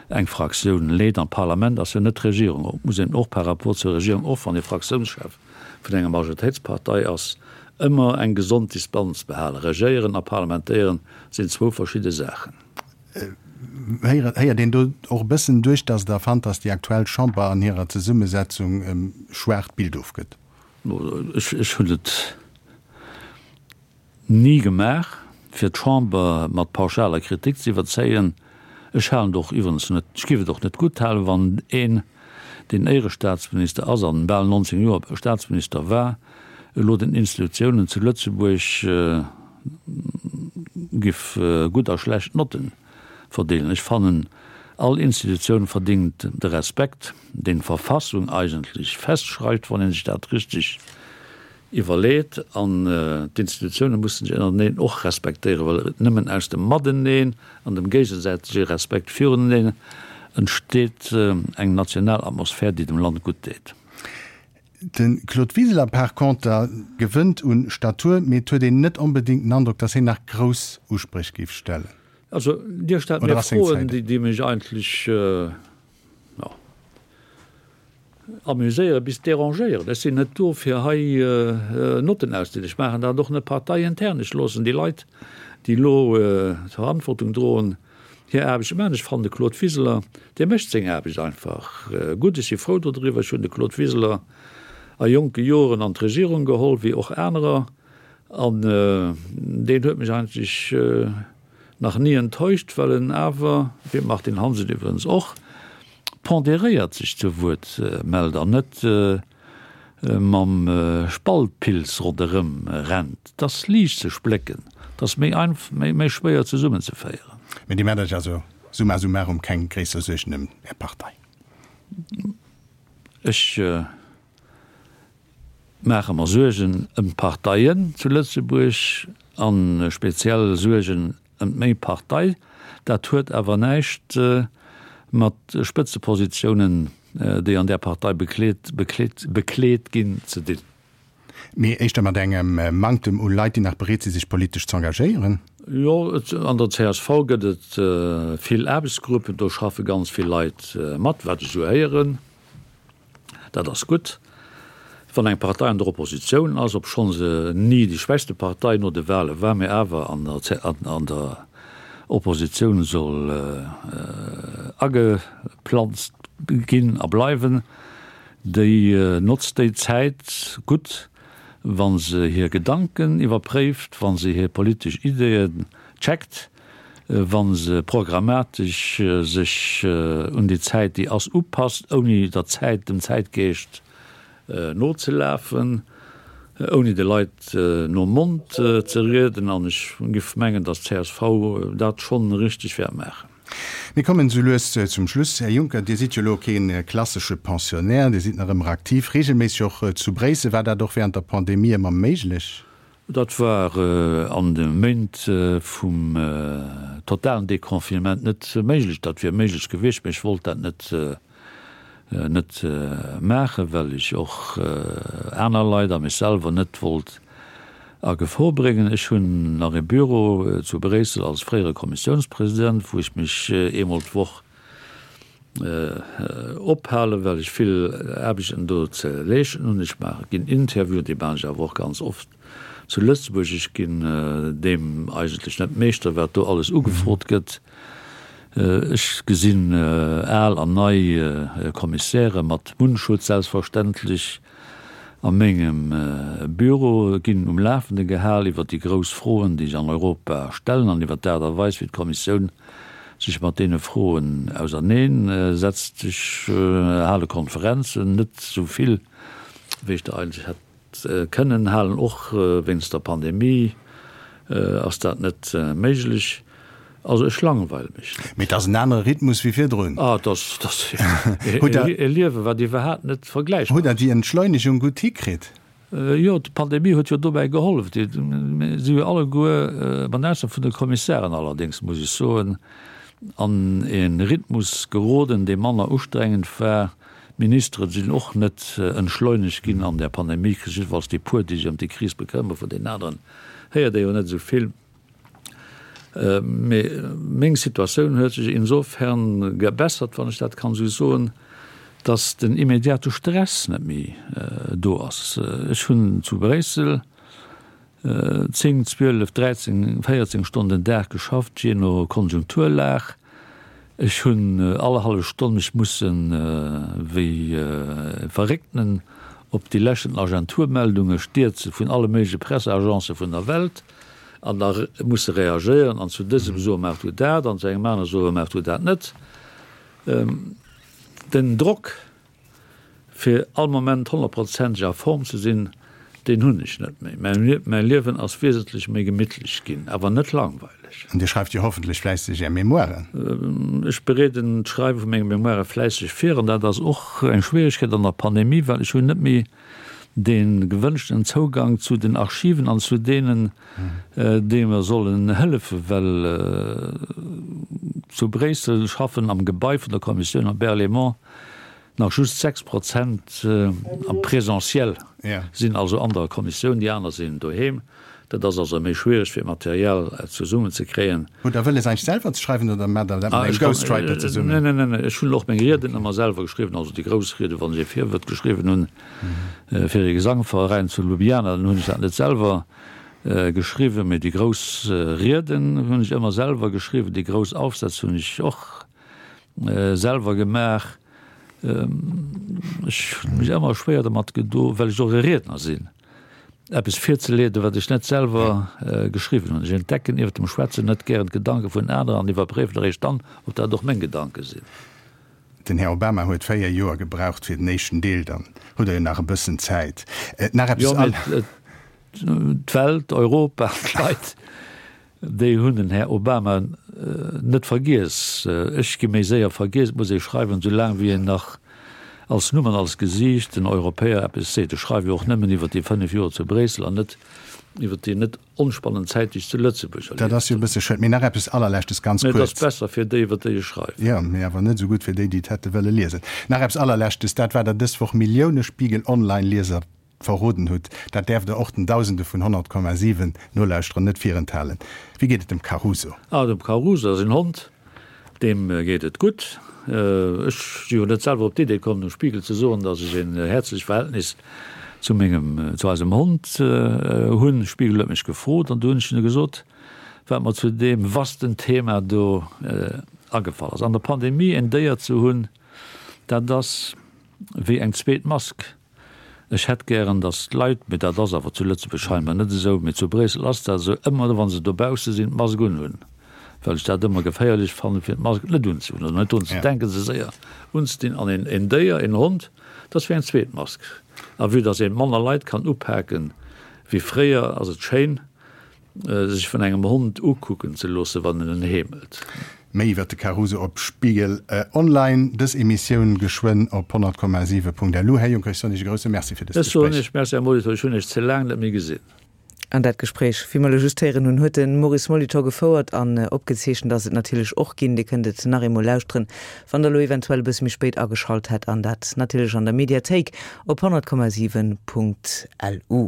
eng Fraktioun leet. An d'Parlament ass jo net d'Regierung. Et muss een och par rapport zur Regierung, och wann ee Fraktiounschef vun enger Majoritéitspartei ass, ëmmer eng gesond Distanz behalen. Regéieren a parlementéieren sinn zwou verschidde Saachen. Héiert een do och e bëssen duerch, datt Der fannt, datt déi aktuell Chamber an hirer Zesummesetzung e schwaacht Bild ofgëtt? Ech hunn et Ni gemaach, fir d'Chamber mat pauschaler Kritik ze iwwerzéien. Ech halen et och iwwerens net, ech géif et och net gutt halen, wann een, deen Éierestaatsminister ass an bal 19 Joer Staatsminister war, elo den Institutiounen zu Lëtzebuerg giff gutt a schlecht Notten verdeelen. Ech fannen, all Institutioun verdingt de Respekt, deen d'Verfassung eigentlech festschreift, wann ee sech dat richteg Iwwerleet an d'Institutioune mussen sech ënnerteneen och respektéieren, well et nëmmen aus dem Mateneen an dem géigesäitege Respekt viruneneen entsteet eng national Atmosphär, déi dem Land gutt deet. De Claude Wiseler par conter gewënnt un Statur, mee et huet een net onbedéngt den Androck, datt hien nach grouss Uspréch géif stellen. Also Dir stellt mir Froen, déi mech eigentlech, jo, Amuséieren bis dérangéieren. Ech sinn net do fir hei Notten auszedelen. Ech maachen dat och net parteiintern. Ech loossen déi Leit, déi elo d'Verantwortung droen, hir Aarbecht maachen. Ech fannen de Claude Wiseler, dee mécht seng Aarbecht einfach gutt. Ech si frou dodriwwer. Ech hunn de Claude Wiseler a jonke Joren an d'Regierung geholl, wéi och anerer, an deen huet mech eigentlech nach ni enttäuscht, well en awer, wéi d'Martine Hansen iwwregens och. ponderéiert sech zu Wuert mellt an net mam Spaltpilz ronderëm rennt. 't ass liicht ze splécken, 't ass méi einf méi schwéier zesummenzeféieren. Mee Dir maacht Iech also summa summarum keng gréisser Suergen ëm Är Partei? Ech maache mer Suergen ëm d'Parteien zu Lëtzebuerg a speziell Suergen ëm meng Partei. Dat huet awer näischt mat Spëtzepositiounen, déi an där Partei bekleet, bekleet, bekleet ginn, ze dinn. Mee éischter mat engem Manktem u Leit, déi nach bereet si sech politesch z'engagéieren? Jo, an der csv gëtt et vill Aarbechtsgruppen, do schaffe ganz vill Leit mat, wat ech esou héieren. Dat ass gutt. Wann eng Partei an der Oppositioun ass, obschonn se ni déi schwächste Partei no de Wale war, mee awer an der Oppositioun soll ageplanzt ginn a bleiwen, déi notzt déi Zäit gutt, wa se hir Gedanken iwwerpréift, wa se hir politesch Ideeën checkt, wa se programmatesch sech un déi Zäit, déi ass, upasst, ouni der Zäit, dem Zäitgeescht nozelafen, ouni de Leit nom Mond ze rieden. An ech giff mengen, datt d'CSV dat schonn richteg wäert maachen. Mir kommen esou lues zum Schluss. Här Juncker, Dir sidd jo elo kee klassesche Pensionnaire, Dir sidd nach ëmmer aktiv, regelméisseg och zu Bréissel. War dat och während der Pandemie ëmmer méiglech? Dat war an de Méint vum totalen Deconfinement net méiglech. Dat wier méiglech gewiescht, mee ech wollt dat net net maachen, well ech och aner Leit a mech selwer net wollt a Gefor bréngen. Ech hunn nach e Büro zu Bréissel als fréiere Kommissiounspresident, wou ech mech eemol d'Woch ophalen, well ech vill Aarbechten do ze leeschten hunn. Ech maache ginn Interviewen, déi maachen ech awer och ganz oft zu Lëtzebuerg. Ech ginn deem eigentlech net Meeschter, wat do alles ugefrot gëtt. Ech gesinn al an nei Kommissäre mat Mundschutz selbstverständlech a mengem Büro, ginn um Lafende gehal iwwer déi grouss Froen, déi sech an Europa stellen an iwwer d'Aart a Weis, wéi d'Kommissioun sech mat deene Froen auserneen setzt. Ech hale Konferenzen, net esou vill, wéi ech der eigentlech hätt kënnen halen, och wéinst der Pandemie ass dat net méiglech. Also ech langweile mech net. Mee et ass en anere Rhythmus wéi virdrun. Ah, et ass, et ass e Liewen, wat iwwerhaapt net vergläichbar ass. Hutt Der déi Entschleunegung gutt hikritt? Jo, d'Pandemie huet jo dobäi gehollef. Mir si jo alleguer, mat Ausnam vun de Kommissären allerdéngs, muss ech soen, an e Rhythmus geroden, dee manner ustrengend war. D'Ministere sinn och net entschleunegt ginn an där Pandemiekris, jiddefalls déi puer, déi sech ëm déi Kris bekëmmeren. Vun deenen aneren héiert ee jo net esou vill. Mee meng Situatioun huet sech insofern gebessert, wann ech dat kann esou soen, datt den immediate Stress net méi do ass. Ech hunn zu Bréissel 10, 12, 13, 14 Stonnen den Dag geschafft, jee no Konjunkturlag. Ech hunn all hallef Stonn mech mussen wéi e Verréckten op déi leschten Agenturmeldunge stierze vun alle méigleche Presseagencë vun der Welt an da musse reagéieren an zu dësem soe maach du dat an zu engem anere soe maach du dat net. Den Drock fir all Moment honnertprozenteg a Form ze sinn, deen hunn ech net méi. Mäi Liewen ass wiesentlech méi gemittlech ginn, awer net langweileg. An Dir schreift jo hoffentlech fläisseg Är Memoiren? Ech bereeden d'Schreiwe vu menge Memoire fläisseg vir an dat ass och eng Schwieregkeet an der Pandemie, well ech hunn net méi dee gewënschten Zougang zu den Archiven an zu deenen, déi mer sollen hëllefen, well zu Bréissel schaffen am Gebai vun der Kommissioun am Berlaymont nach just 6 Prozent am Présentiel sinn, also an der Kommissioun, déi aner sinn doheem. Dat ass also méi schwiereg fir Material zesummen ze kréien. Hutt Der wëlles eigentlech selwer ze schreiwen oder maacht Der dat mat engem Ghostwriter zesummen? Neen, neen, neen, ech hunn och meng Rieden ëmmer selwer geschriwwen, also déi grouss Rieden, wann ech ee Virwuert geschriwwen hunn fir ee Gesangveräin zu Ljubljana, dann hunn ech dat net selwer geschriwwen, mee déi grouss Rieden hunn ech ëmmer selwer geschriwwen, déi grouss Aufsätz hunn ech och selwer gemaach. Ech hunn mech ëmmer schwéier domat gedo, well ech och e Riedner sinn, eppes virzeleeden, wat ech net selwer geschriwwen hunn. Ech entdecken iwwer dem Schwätzen net gären d'Gedanke vun aneren an iwwerpréiwen eréischt dann, ob dat och meng Gedanke sinn. Den Här Obama huet 4 Joer gebraucht fir den éischten Deel, dann hutt Der jo nach e bëssen Zäit. Nach eppes. Jo, mee d'Welt, Europa, d'Leit, déi hunn den Här Obama net vergiess. Ech gi méi séier vergiess. Et muss ee schreiwen, esou laang wéi een nach als Numm an als Gesiicht den Europäer eppes seet. Ech schreiwe jo och nëmmen iwwer déi 5 Joer zu Bréissel an net iwwer déi net onspannend Zäit, déi ech zu Lëtzebuerg erlieft hunn. Dat ass jo e bësse schued. Mee nach eppes Allerleschtes, ganz kuerz. Mee et ass besser fir déi, iwwer déi ech schreiwen. Jo, mee awer net esou gutt fir déi, déi et hätte wëlle liesen. Nach eppes Allerleschtes, dat wat Der dës Woch Millioune Spiegel Online-Lieser verroden hutt, dat däerft Der och den Dausende vun 100,7 Nolauschterer net virenthalen. Wéi geet et dem Caruso? Ah, dem Caruso ass en Hond. Deem geet et gutt. Ech si jo net selwer op d'Idee komm, dem Spiegel ze soen, datt ech en häerzlecht Verhältnis zu mengem, zu eisem Hond hunn. De Spiegel huet mech gefrot an du hunn ech hinne gesot, wat mer zu deem vasten Thema do agefall ass. An der Pandemie en Déier ze hunn, dat ass wéi eng zweet Mask. Ech hätt gären, datt d'Leit, mee dat ass awer zu Lëtzebuerg scheinbar net esou, mee zu Bréissel ass dat esou, ëmmer wa se dobausse sinn, d'Mask unhunn, well ech dat ëmmer geféierlech fannen, fir d'Mask net unzehunn oder net drun ze denken, se séier unzedinn. An een Déier, een Hond, dat ass wéi eng zweet Mask. A vue datt ee manner Leit kann upaken wéi fréier, ass et schéin, Sech vun engem Hond ukucken ze loossen, wann en en heemelt. Méi iwwer de Caruso op Spiegel Online. Dës Emissioun geschwënn op 100,7.lu. Här Juncker, ech soen Iech e grousse Merci fir dëst Ech soen Gespréich. Iech Merci, Här Molitor. Ech hunn Iech ze laang net méi gesinn. An dat Gespréich, wéi mer elo just héieren hunn, huet de Maurice Molitor gefouert an opgezeechent ass et natierlech och ginn. Dir kënnt et nach eemol lauschteren, wann Der elo eventuell e bësse méi spéit ageschalt hätt an dat natierlech an der Mediathéik op 100,7.lu.